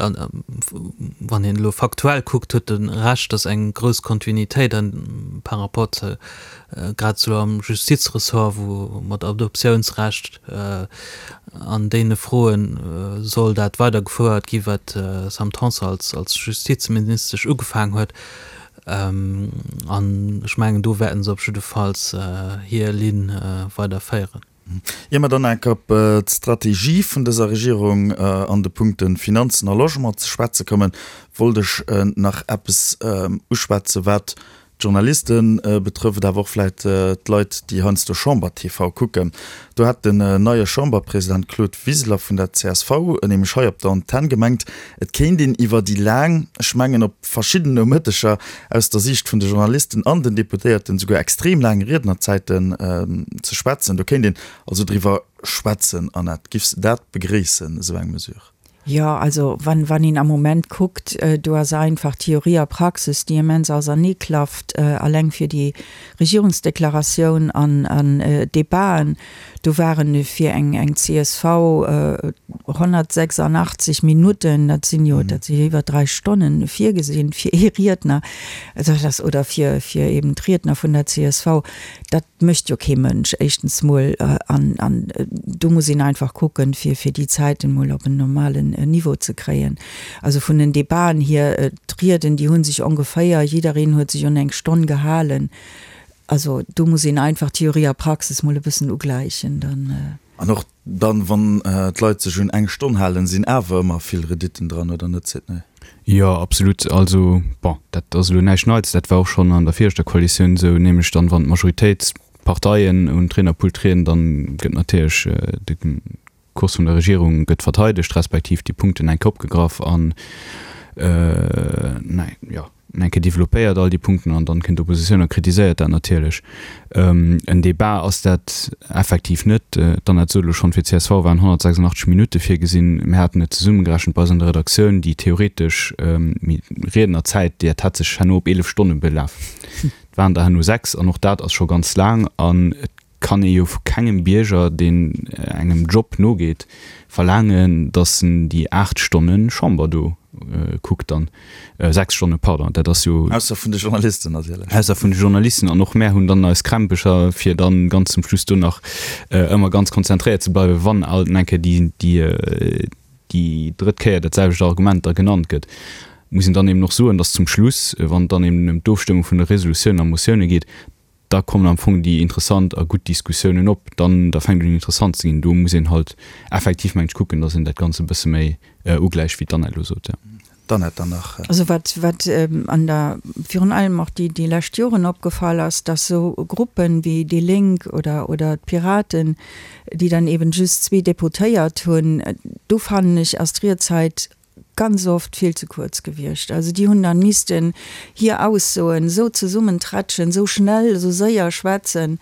wann een elo faktuell kuckt, huet e Recht, datt eng grouss Kontinuitéit an par rapport zu, grad esou am Justizressort, wou mat Adoptiounsrecht an deene Froen soll dat weidergefouert gi wat d'Sam Tanson als als Justizministesch ugefaangen huet. An ech mengen, do wäerten se op jiddefalls hir Linn weiderféieren. Ier mer dann enk op d'Strategie vun dëser Regierung an de Punkte Finanzen a Logement ze schwätze kommen, wollt ech nach eppes uschwätzen, wat d'Journaliste betrëfft, awer och vläicht d'Leit, déi heiansdo Chamber TV kucken. Do hat den neie Chamberpresident Claude Wiseler vun der csv nämlech hei op der Antenn gemengt, et kéint een iwwer déi laang, ech mengen op verschidden Nomëtteger, aus der Siicht vun de Journalisten an den Deputéierten souguer extrem laang Riednerzäiten ze schwätzen. Do kéint een also driwwer schwätzen. Annette, giffs de dat begréissen, esou eng Mesure? Jo, also wann, wann een am Moment kuckt, do ass einfach Theorie a Praxis, déi immens auserneeklafft, alleng fir déi Regierungsdeklaratioun an, an d'Debaten, do waren fir eng, eng csv 186 Minutten, dat sinn jo, dat si jo iwwer 3 Stonnen, virgesinn fir ee Riedner, also dat ass, oder fir, fir eben d'Riedner vun der csv, dat mécht jo kee Mënsch, éischtens mol, an, an do muss een einfach kucken, fir, fir déi Zäiten mol op en normalen Niveau ze kréien. Also vun den Debaten hier, d'Rieden, déi hu sech ongeféier, jiddereen huet sech un eng Stonn gehalen. Also do muss een einfach Theorie a Praxis mol e bëssen ugläichen, dann. An och Dann, wann d'Leit sech un eng Stonn halen, sinn awer ëmmer vill Rediten dran, oder net, Sidney? Jo, absolut. Also, bon, dat ass elo näischt Neits, dat war och schonn an der viregter Koalitioun esou, nämlech dann, wann d'Majoritéitsparteien un d'Riednerpult trieden, dann gëtt natierlech de Kurs vun der Regierung gëtt verteidegt, respektiv déi Punkten eng Kéier opgegraff an, jo, eng Kéier développéiert all déi Punkten an dann kënnt d'Oppositioun a kritiséiert dat natierlech. En Débat ass dat effektiv net. D'Annette sot elo schonn, fir csv waren 186 Minutte virgesinn. Mir haten et zesummegerechent bei eis an der Redaktioun, déi theoretesch Riednerzäit, déi hat sech herno op 11 Stonne belaf. Et waren der herno 6 an och dat ass scho ganz laang an et kann ee jo vu kengem Bierger, deen engem Job nogeet, verlaangen, datt en déi 8 Stonne Chamber do kuckt dann, 6 Stonne, pardon, dat ass jo. Ausser vun de Journalisten natierlech. Ausser vun de Journalisten. An och mär hunn dann eis Krämpecher, fir dann ganz zum Schluss do nach ëmmer ganz konzentréiert ze bleiwen, wann alt eng Kéier déi, déi, déi drëtt Kéier dat selwecht Argument da genannt gëtt. Muss een dann eben och soen, datt zum Schluss, wann et dann eben ëm d'Ofstëmmung vun de Resolutiounen a Motioune geet, da kommen am Fong déi interessant a gutt Diskussiounen op, dann da fänkt un interessant ze ginn. Do muss een halt effektiv, mengen ech, kucken, datt een dat Ganze e bësse méi ugläicht, wéi d'Annette elo sot, jo. D'Annette dann nach. Also wat, wat an der, virun allem och déi, déi lescht Joren opgefall ass, datt esou Gruppen wéi déi Lénk oder, oder d'Piraten, déi dann eben just zwee Deputéiert hunn, do fannen ech ass d'Riedzäit ganz oft vill ze kuerz gewiescht. Also déi hunn dann missten hir Aussoen esou zesummenträtschen, esou schnell, esou séier schwätzen.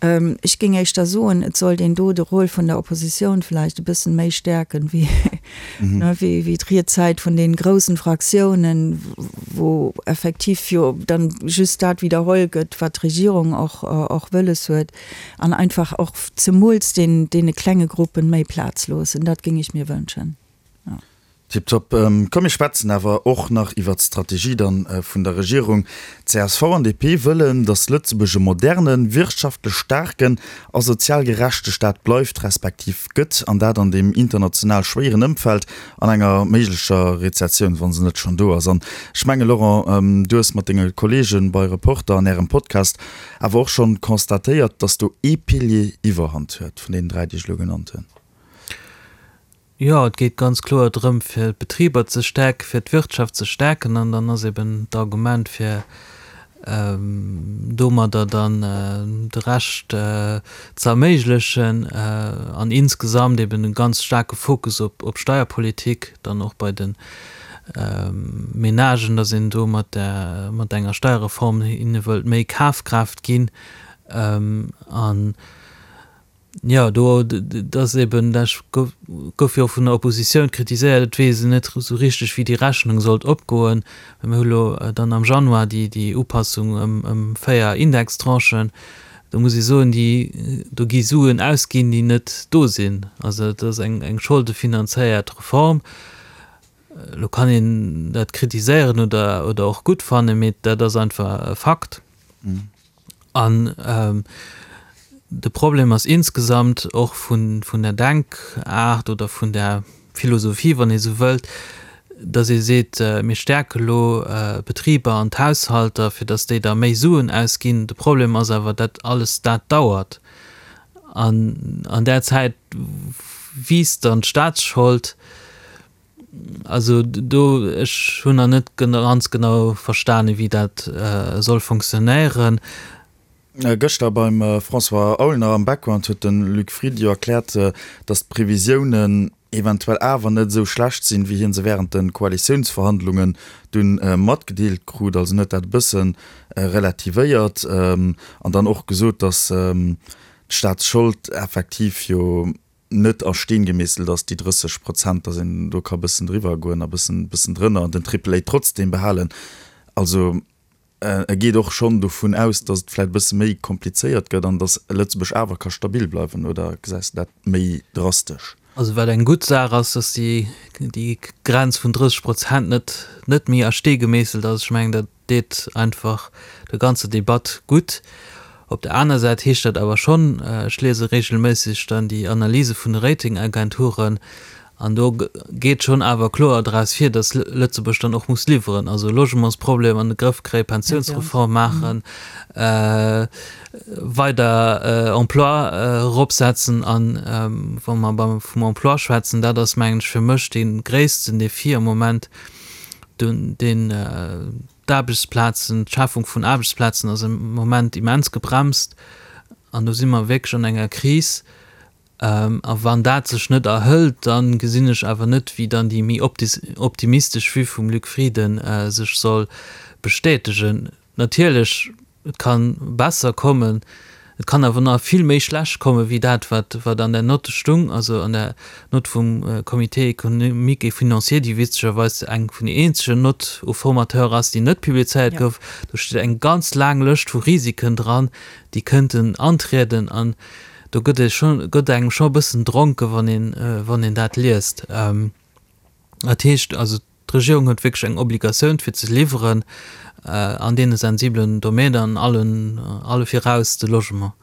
Ech géing éischter soen, et sollt een do de Rôle vun der Oppositioun vläicht e bëssen méi stäerken, wéi, wéi d'Riedzäit vun deenen groussen Fraktiounen, wou effektiv jo dann just dat widderholl gëtt, wat d'Regierung och, och wëlles huet, an einfach och zemools den, deene klenge Gruppen méi Plaz loossen. Dat géing ech mir wënschen. Tiptop. Komm mir schwätzen awer och nach iwwert d'Strategie dann vun der Regierung. Csv an DP wëllen, datt Lëtzebuerg e modernen, wirtschaftlech staarken a sozial gerechte Staat bleift, respektiv gëtt, an dat an deem international schwéieren Ëmfeld an enger méiglecher Rezessioun, wa se net schonn do ass. An ech menge Laurent, du hues mat denge Kollege bei Reporter an Ärem Podcast awer och schonn constatéiert, datt do ee Pilier Iwwerhand huet vun deenen 3, déi ech elo genannt hunn. Jo, et geet ganz kloer drëm, fir d'Betriber ze stäerken, fir d'Wirtschaft ze stäerken. An dann ass eben d'Argument, fir domadder dann de Rescht ze erméiglechen an insgesamt eben e ganz staarke Fokus op Steierpolitik, dann och bei de Menagen, datt een do mat enger Steierreform hinne wëllt méi Kafkraaft ginn. An Jo, do, dat ass eben, dat gouf jo och vun der Oppositioun kritiséiert, et weess een net esou richteg, wéi déi Rechnung sollt opgoen. Well mir hu lo dann am Januar déi, déi Upassung ëm, ëm 4 Indextranchen. Do muss ee soen, déi, do gi Suen ausginn, déi net do sinn. Also et ass eng, eng scholdefinanzéiert Reform. Elo kann een dat kritiséieren oder, oder och gutt fannen, mee dat ass einfach e Fakt. An de Problem ass insgesamt och vun der Denkaart oder vun der Philosophie, wann ee sou wëllt, datt ee seet, mir stäerke lo d'Betriber an d'Haushalter, fir datt déi da méi Suen ausginn. De Problem ass awer, datt alles dat dauert. An an där Zäit wiisst dann d'Staatsschold. Also do, ech hunn nach net ganz genau verstanen, wéi dat soll funktionéieren. Gëschter beim François Aulner am Background huet de Luc Frieden jo erkläert, datt d'Previsiounen eventuell awer net esou schlecht sinn, wéi hie se wärend de Koalitiounsverhandlungen dunn matgedeelt krut. Also en huet dat e bësse relativéiert an dann och gesot, datt d'Staatsschold effektiv jo net a Steen gemeesselt ass, déi 30 Prozent, datt een do ka bëssen driwwer goen a bëssen, bëssen drënner an den Triple A trotzdem behalen. Also e geet och schonn dovun aus, datt et vläicht e bësse méi komplizéiert gëtt an datt Lëtzebuerg awer ka stabil bleiwen, oder gesäis de dat méi drastesch? Also wat eng gutt Saach ass, datt déi, déi Grenz vun 30 Prozent net, net méi a Stee gemeesselt ass. Ech mengen, dat deet einfach der ganzer Debatt gutt. Op der aner Säit heescht dat awer schonn, ech liese regelméisseg dann déi Analyse vun de Ratingagenturen, an do geet schonn awer kloer draus vir, datt Lëtzebuerg dann och muss liwweren, also Logementsproblem an de Grëff kréien, Pensiounsreform maachen, weider Emploi eropsetzen. An wa mer vum Emploi schwätzen, dat ass mengen ech fir mech dee gréissten Défi am Moment, deen d'Aarbechtsplazen, d'Schafung vun Aarbechtsplazen ass am Moment immens gebremst an do si mer wierklech an enger Kris. A wann dat sech net erhëlt, da gesinn ech awer net, wéi dann déi méi optimistesch Vue vum Luc Frieden sech soll bestätegen. Natierlech, et ka besser kommen, et kann awer nach vill méi schlecht komme wéi dat, wat wat an der Note stung, also an der Note vum Comité économique et financier, déi witzegerweis eng vun den eenzegen Notes au formateur ass, déi net publizéiert gouf. Do steet eng ganz laang Lëscht vu Risiken dran, déi kënnten antrieden an do gëtt ee scho gëtt engem scho e bëssen dronke wann een wann een dat liest. Dat heescht also, d'Regierung huet wierklech eng Obligatioun fir ze liwweren an deene sensibelen Domänen an allen, alle viraus de Logement.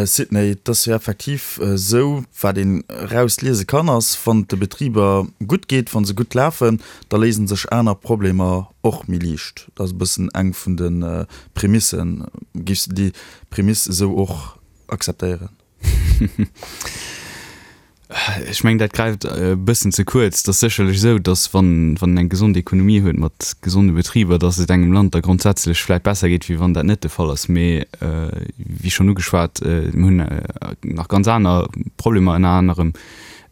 Sidney, et ass jo effektiv esou, wat een erausliese kann, ass, wann et de Betriber gutt geet, wa se gutt lafen, da léise sech aner Problemer och méi liicht. Dat ass e bëssen eng vun de Prämissen. Géifs de déi Prämiss esou och akzeptéieren? Ech mengen, dat gräift e bëssen ze kuerz. Et ass sécherlech esou, datt wann wann een eng gesond Ekonomie huet mat gesonde Betriber, datt et engem Land da grondsätzlech vläicht besser geet, wéi wann dat net de Fall ass. Mee wéi schonn ugeschwat, mir hunn nach ganz aner Problemer, ënner anerem.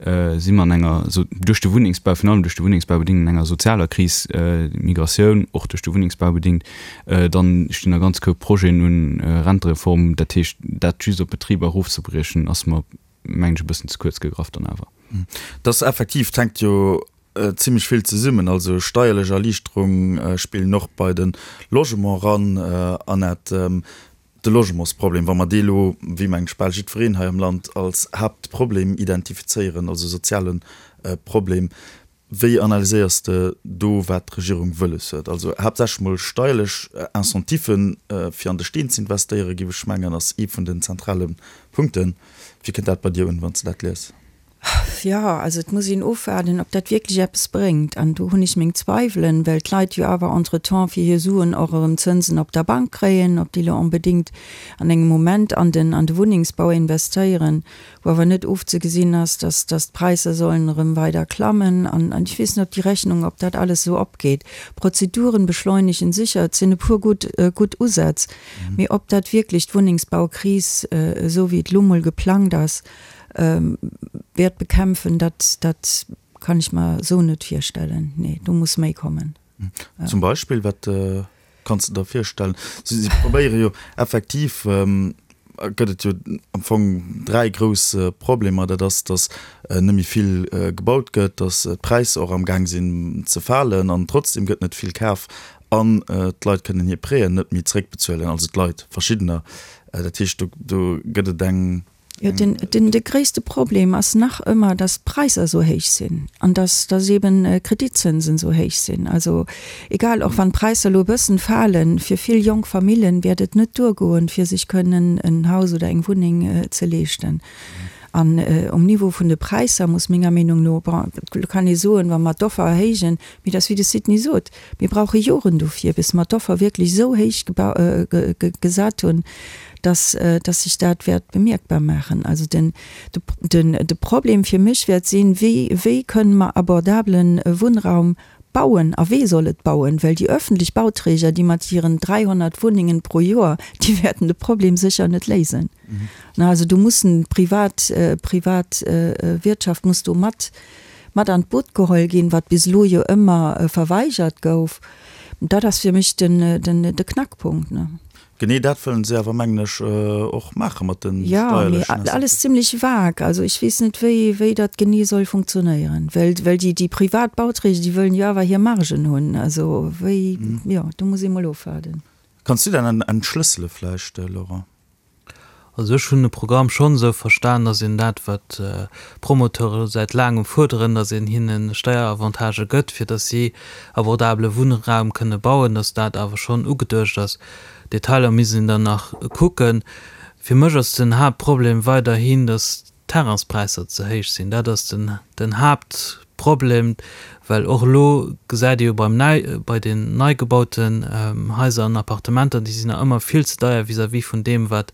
Si mer an enger, duerch de Wunnengsbau, virun allem duerch de Wunnengsbau bedingt, an enger sozialer Kris, Migratioun och duerch de Wunnengsbau bedingt, dann stinn der ganz Koup Projeten un, Rentereform, dat heescht, dat just op Betriber erofzebriechen, ass mer, mengen ech, e bëssen ze kuerz gegraff dann awer. Dat ass effektiv, et hänkt jo zimlech vill zesummen, also steierlech Erliichterung spillen och bei de Logement eran, Annette. De Logementsproblem, wa mer dee lo, wéi mengt ech bal jiddwereen hei am Land, als Haaptproblem identifizéieren, also soziale Problem, wéi analyséiers de do, wat d'Regierung wëlles huet? Also haaptsächlech mol steierlech Incentiven, fir an de Steen ze investéieren, géif ech mengen, ass ee vun den zentrale Punkten. Wéi kënnt dat bei dir un, wann s de dat lies? Jo, also et muss een ofwaarden, ob dat wierklech eppes bréngt. An do hunn ech meng Zweiwelen, well d'Leit jo awer entretemps fir hir Suen och erëm Zënsen op der Bank kréien. Ob déi elo onbedéngt an engem Moment an den, an de Wunnengsbau investéieren, wou awer net ofzegesinn ass, dass, dass d'Präisser sollen erëm weider klammen. An, an ech weess net, ob déi Rechnung, ob dat alles esou opgeet. Prozeduren beschleunegen sécher, et sinn e puer gutt, gutt Usätz, mee ob dat wierklech d'Wunnengsbaukris, esou wéi et elo mol geplangt ass, wäert bekämpfen, dat, dat kann ech mer esou net virstellen. Nee, do muss méi kommen. Zum Beispill, wat kanns de der virstellen? Si, si probéiere jo effektiv, gëtt et jo am Fong 3 grouss Problemer. Dat ass, datt net méi vill gebaut gëtt, datt d'Präisser och am Gaang sinn ze falen an trotzdem gëtt net vill kaf an d'Leit kënnen hir Prêten net méi zréckbezuelen, also d'Leit, verschiddener. Dat heescht, do, do gëtt et eng. Jo, den, den, de gréisste Problem ass nach ëmmer, dass d'Präisser esou héich sinn an dass, dass eben d'Kreditzënsen esou héich sinn. Also egal, och wann d'Präisser elo e bëssen falen, fir vill jonk Famillen wäert et net duergoen, fir sech kënnen en Haus oder eng Wunneng ze leeschten. An um Niveau vun de Präisser muss menger Meenung no, bon, elo kann ee soen, wa mer d'Offer erhéijen, mee dat ass wéi de Sidney sot, Mir brauche Joren dofir, bis mer d'Offer wierklech esou héich gesat hunn, dass, dass sech dat wäert bemierkbar maachen. Also den, den, de Problem fir mech wäert sinn, Wéi, wéi kënnen mer abordablen Wunnraum bauen a wee soll et bauen? Well déi öffentlech Bauträger, déi mat hiren 300 Wunnengen pro Joer, déi wäerten de Problem sécher net léisen. Na, also do mussen d'privat, privat Wirtschaft muss do mat, mat an d'Boot geholl ginn, wat bis elo jo ëmmer verweigert gouf. Dat ass fir mech den, den, de Knackpunkt, ne. Genee dat wëllen se awer, mengen ech, och maache mat de Jo, mee steierlechen alles zimlech vag. Also ech weess net, wéi, wéi dat genee soll funktionéieren. Well, well déi, déi privat Bauträger, déi wëllen jo awer hir Margen hunn. Also wéi, jo, do muss ee mol ofwaarden. Kanns du dat entschlëssele vläicht, Laurent? Also ech hunn de Programm schonn esou verstan, datt een dat, wat d'Promoteure säit laangem fuerderen, datt een hinne Steieravantagë gëtt, fir datt si abordabele Wunnraum kënne bauen, datt dat awer schonn ugeduecht ass. Detailer misst een dann nach kucken. Fir mech ass den Haaptproblem weiderhin, datt d'Terrainspräisser ze héich sinn. Dat ass den, den Haaptproblem, well och elo gesäit ee jo beim nei, bei den nei gebauten Haiser an Appartementer, déi sinn nach ëmmer vill ze deier vis-à-vis vun deem, wat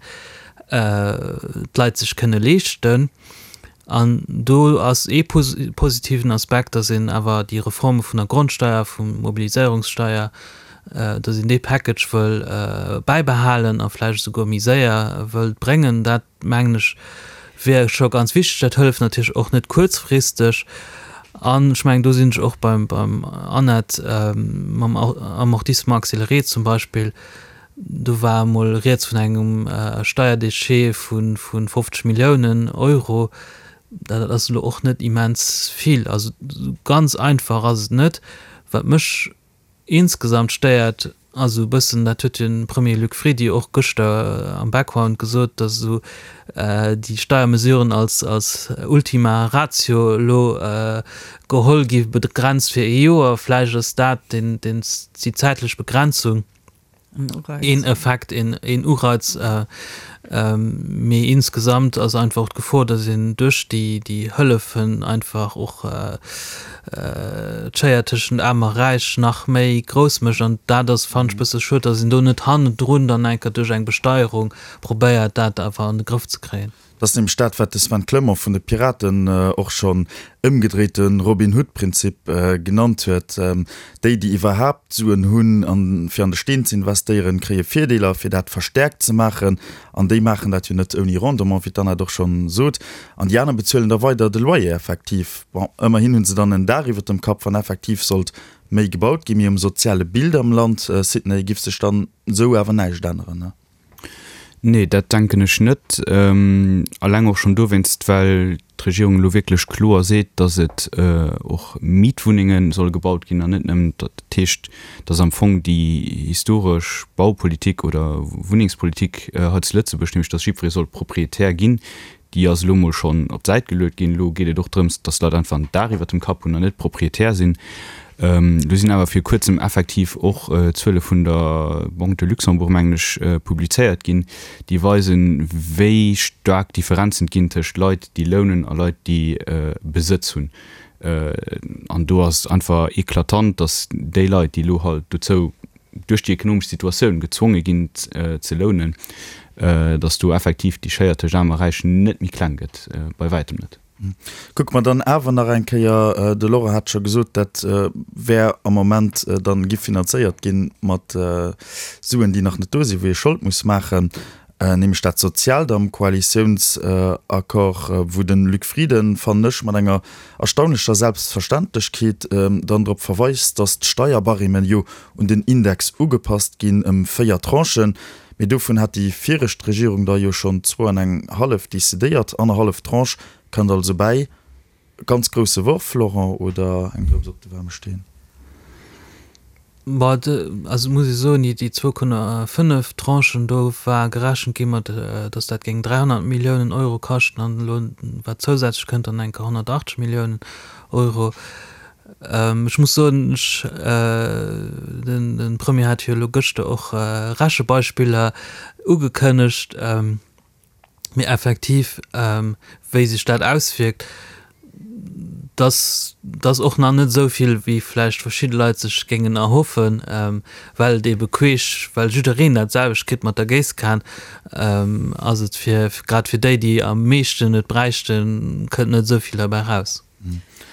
d'Leit sech kënne leeschten. An do ass ee positiven Aspekt, datt een awer déi Reforme vun der Grondsteier, vum Mobiliséierungssteier, datt een dee Package wëll bäibehalen a vläicht esouguer méi séier wëllt bréngen. Dat mengen ech, wier scho ganz wichteg. Dat hëlleft natierlech och net kuerzfristeg. An ech mengen, do sinn ech och beim, beim Annette, mam Amortissement accéléré zum Beispill, do war emol rieds vun engem Steierdéchet vu 50 Milliounen Euro. Dat ass elo och net immens vill. Also ganz einfach ass et net. Wat mech insgesamt stéiert, ass esou e bëssen, dat huet jo de Premier Luc Frieden och gëschter am Background gesot, datt esou déi Steiermesuren als als Ultima Ratio elo geholl gi begrenzt fir ee Joer. Vläicht ass dat deen deen déi zäitlech Begrenzung. Een Effekt, een Ureiz, mee insgesamt ass einfach och d'Gefor, datt een duerch déi Hëllefen einfach och d'Schéier tëschent Aarm a Räich nach méi grouss mécht. An dat ass, fannen ech, e bësse schued, datt een do net hannendrun dann eng Kéier duerch eng Besteierung probéiert, dat awer an de Grëff ze kréien. Dat ass nämlech dat, wat de Sven Clement vun de Piraten och schonn ëmgedréite Robin Hood-Prinzip genannt huet. Déi, déi iwwerhaapt Suen hunn, fir an de Steen ze investéieren, kréie Virdeeler, fir dat verstäerkt ze maachen. An déi maachen dat jo net ouni Rendement, wéi d'Annette och schonn sot. An déi aner bezuelen da weider de Loyer effektiv. Bon, ëmmerhin hu se dann en Daach iwwer dem Kapp, wann effektiv sollt méi gebaut ginn. Mee um soziale Bild am Land, Sidney, giff sech dann esou awer näischt änneren, ne? Nee, dat denken ech net. Alleng och schonn dowéinst, well d'Regierung elo wierklech kloer seet, datt et och Mietwunnenge solle gebaut ginn an net nëmmen, dat heescht, datt am Fong déi historesch Baupolitik oder Wunnengspolitik hei zu Lëtzebuerg, nämlech datt jiddweree soll Proprietär ginn, Déi ass elo mol schonn op d'Säit geluet ginn. Elo geet et och drëms, dass d'Leit einfach en Daach iwwert dem Kapp hunn an net Proprietär sinn. Do sinn awer vir kuerzem effektiv och Zuele vun der Banque de Luxembourg, mengen ech, publizéiert ginn, déi weisen, wéi staark Differenzen et ginn tëscht Leit, déi lounen a Leit, déi Besëtz hunn. An do ass et einfach eklatant, dass déi Leit, déi elo halt dozou duerch déi ekonomesch Situatioun gezwonge ginn ze lounen, datt do effektiv déi Schéier tëscht Aarm a Räich net méi kleng gëtt, bei wäitem net. Kucke mer dann awer nach eng Kéier, de Laurent hat scho gesot, dat wär am Moment dann giff finanzéiert ginn mat Suen, déi nach net do sinn, wou ee Schold muss maachen, nämlech dat Soziaalt am Koalitiounsaccord, wou de Luc Frieden, fannen ech, mat enger erstaunlecher Selbstverständlechkeet dann drop verweist, datt d'Steierbarêmen jo un den Index ugepasst ginn ëm 4 Tranchen, mee dovun hat déi viregt Regierung der jo schonn zwou an eng hallef decidéiert. Annerhallef Tranche kënnt also bäi. Ganz grousse Worf, Laurent, oder eng Drëps op de waarme Steen? Bon, also muss ech soen, déi 2,5 Tranchen, do war gerechent gi mat, datt dat géing 300 Milliounen Euro kaschten an elo wat zousätzlech kënnt, dann enker 180 Milliounen Euro. Ech muss soen, ech, de Premier hat jo elo gëschter och Rechebeispiller ugekënnegt, Mee effektiv, wéi sech dat auswierkt, dass dass och nach net esou vill, wéi vläicht verschidde Leit sech géingen erhoffen, well et eebe queesch, well jiddereen dat selwecht kritt mat der Géisskan, ass et fir grad fir déi, déi am meeschten et bräichten, kënnt net esou vill derbäi raus.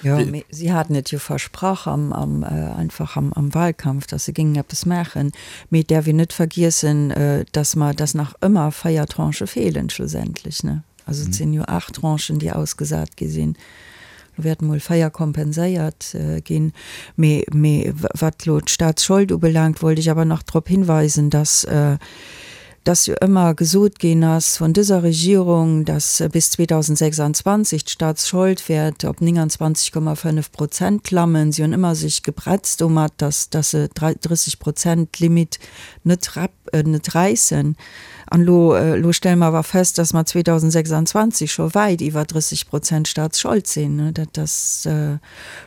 Jo, mee si haten et jo versprach am, am, einfach am, am Wahlkampf, dass se géingen eppes maachen. Mee et däerf een net vergiessen, dass mer, dass nach ëmmer 4 Tranchë feelen schlussendlech, ne? Also et sinn jo 8 Tranchen, déi ausgesat gi sinn. Elo wäerten emol 4 kompenséiert ginn. Mee, mee wat elo d'Staatsschold ubelaangt, wollt ech awer nach drop hinweisen, dass, dass jo ëmmer gesot ginn ass vun dëser Regierung, dass bis 2026 d'Staatsschold wäert op 29,5 Prozent klammen. Si hunn ëmmer sech gebretzt domat, dass dass se d'30 Prozent Limit net net räissen. An elo elo stelle mer awer fest, dass mer 2026 scho wäit iwwer 30 Prozent Staatsschold sinn. Dat ass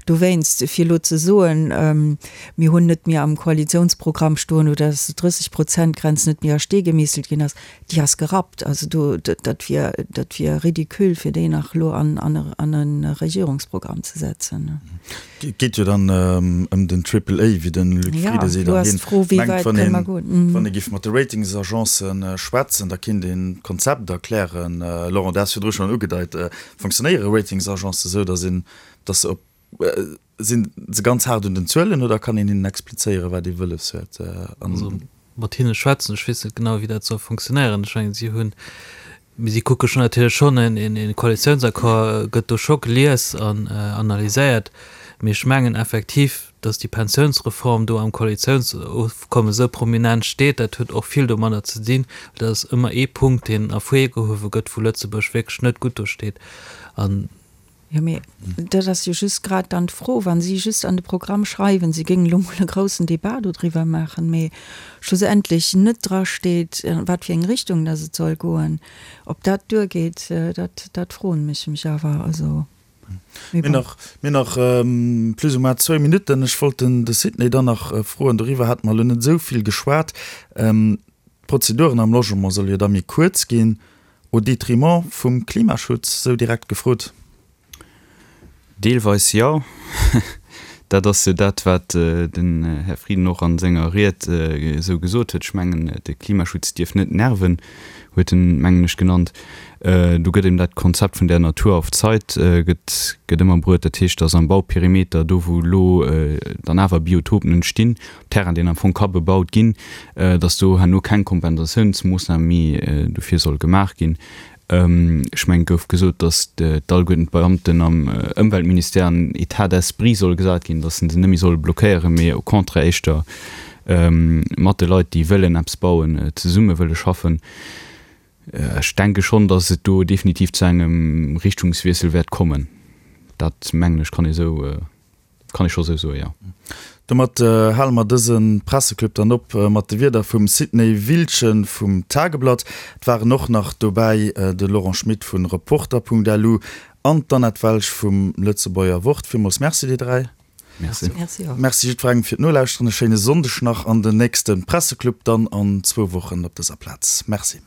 Dowéinst, fir elo ze soen, mir hunn net méi am Koalitionsprogramm stoen oder dass d'Drësseg Prozent Grenz net méi a Stee gemeesselt ginn ass, déi ass gerappt. Also do, dat wier, dat wier ridicule, fir déi nach elo an, an e Regierungsprogramm ze setzen. Et geet jo dann ëm den Triple A, wéi de Luc Frieden seet, an hien mengt, wann een, wann ee géif mat de Ratingsagencen schwätzen, da kéint een d'Konzept erklären. Laurent, du has virdru schonn ugedeit, Fonctionnéiere Ratingsagencen esou, dass een, dass se op, sinn se ganz haart un den Zuelen oder kann een hinnen explizéieren, wat ee wëlles huet? An. Also mat hinne schwätzen, ech weess net genau, wéi dat soll fonctionnéieren. Ech mengen, si hunn, mee si kucke schonn natierlech schonn, en een Koalitiounsaccord gëtt do scho gelies an analyséiert. Mee ech mengen effektiv, datt déi Pensiounsreform do am Koalitiounsofkommes esou prominent steet, dat huet och vill domadder ze dinn, well dat ass ëmmer ee Punkt, deen ervirgehuewe gëtt, wou Lëtzebuerg wierklech net gutt do steet. An Jo, mee dat ass jo just grad dann d'Fro, wa si just an de Programm schreiwen, si géingen elo mol e groussen Débat dodriwwer maachen, mee schlussendlech net drasteet, a wat fir eng Richtung dass et soll goen, ob dat duergeet, dat, dat froen ech mech awer. Also, mee bon. Mir nach plus ou moins zwou Minutten. Ech wollt den de Sidney dann nach froen, doriwwer hate mer elo net esou vill geschwat, D'Prozeduren am Logement solle jo da méi kuerz ginn. Au détriment vum Klimaschutz, sou direkt gefrot? Deelweis jo. Dat ass jo dat, wat den Här Frieden och a senger Ried esou gesot huet. Ech mengen, de Klimaschutz dierf net nerven, huet en, mengen ech, genannt. Do gëtt ëm dat Konzept vun der Natur auf Zeit gëtt, gëtt ëmmer bruet. Dat heescht, datt am Bauperimeter, do wou elo dann awer Biotopen entstinn, op Terrain, deen am Fong ka bebaut ginn, datt do herno keng Kompensatiounsmoossnam méi dofir soll gemaach ginn. Ech mengen, et gouf gesot, datt d'alleguerten d'Beamten am Ëmweltministère an État d'esprit soll gesat ginn, datt se se net méi solle blockéieren, mee au contraire éischter mat de Leit, déi wëllen eppes bauen, zesumme wëlle schaffen. Ech denke schonn, datt et do definitiv zu engem Richtungswiessel wäert kommen. Dat, mengen ech, kann ee sou. Kann ee scho sou soen, jo. Domat hale mer dëse Presseclub dann op mat de Wierder vum Sidney Wiltgen vum Tageblatt. Et waren och nach dobäi de Laurent Schmit vu Reporter.lu an d'Annette Welsch vum Lëtzebuerger Wort. Villmools Merci dir 3. Merci. Merci och. Merci jiddwerengem fir d'Nolauschteren. E schéine Sonndeg nach an den nächste Presseclub dann an zwou Wochen op dëser Plaz. Merci.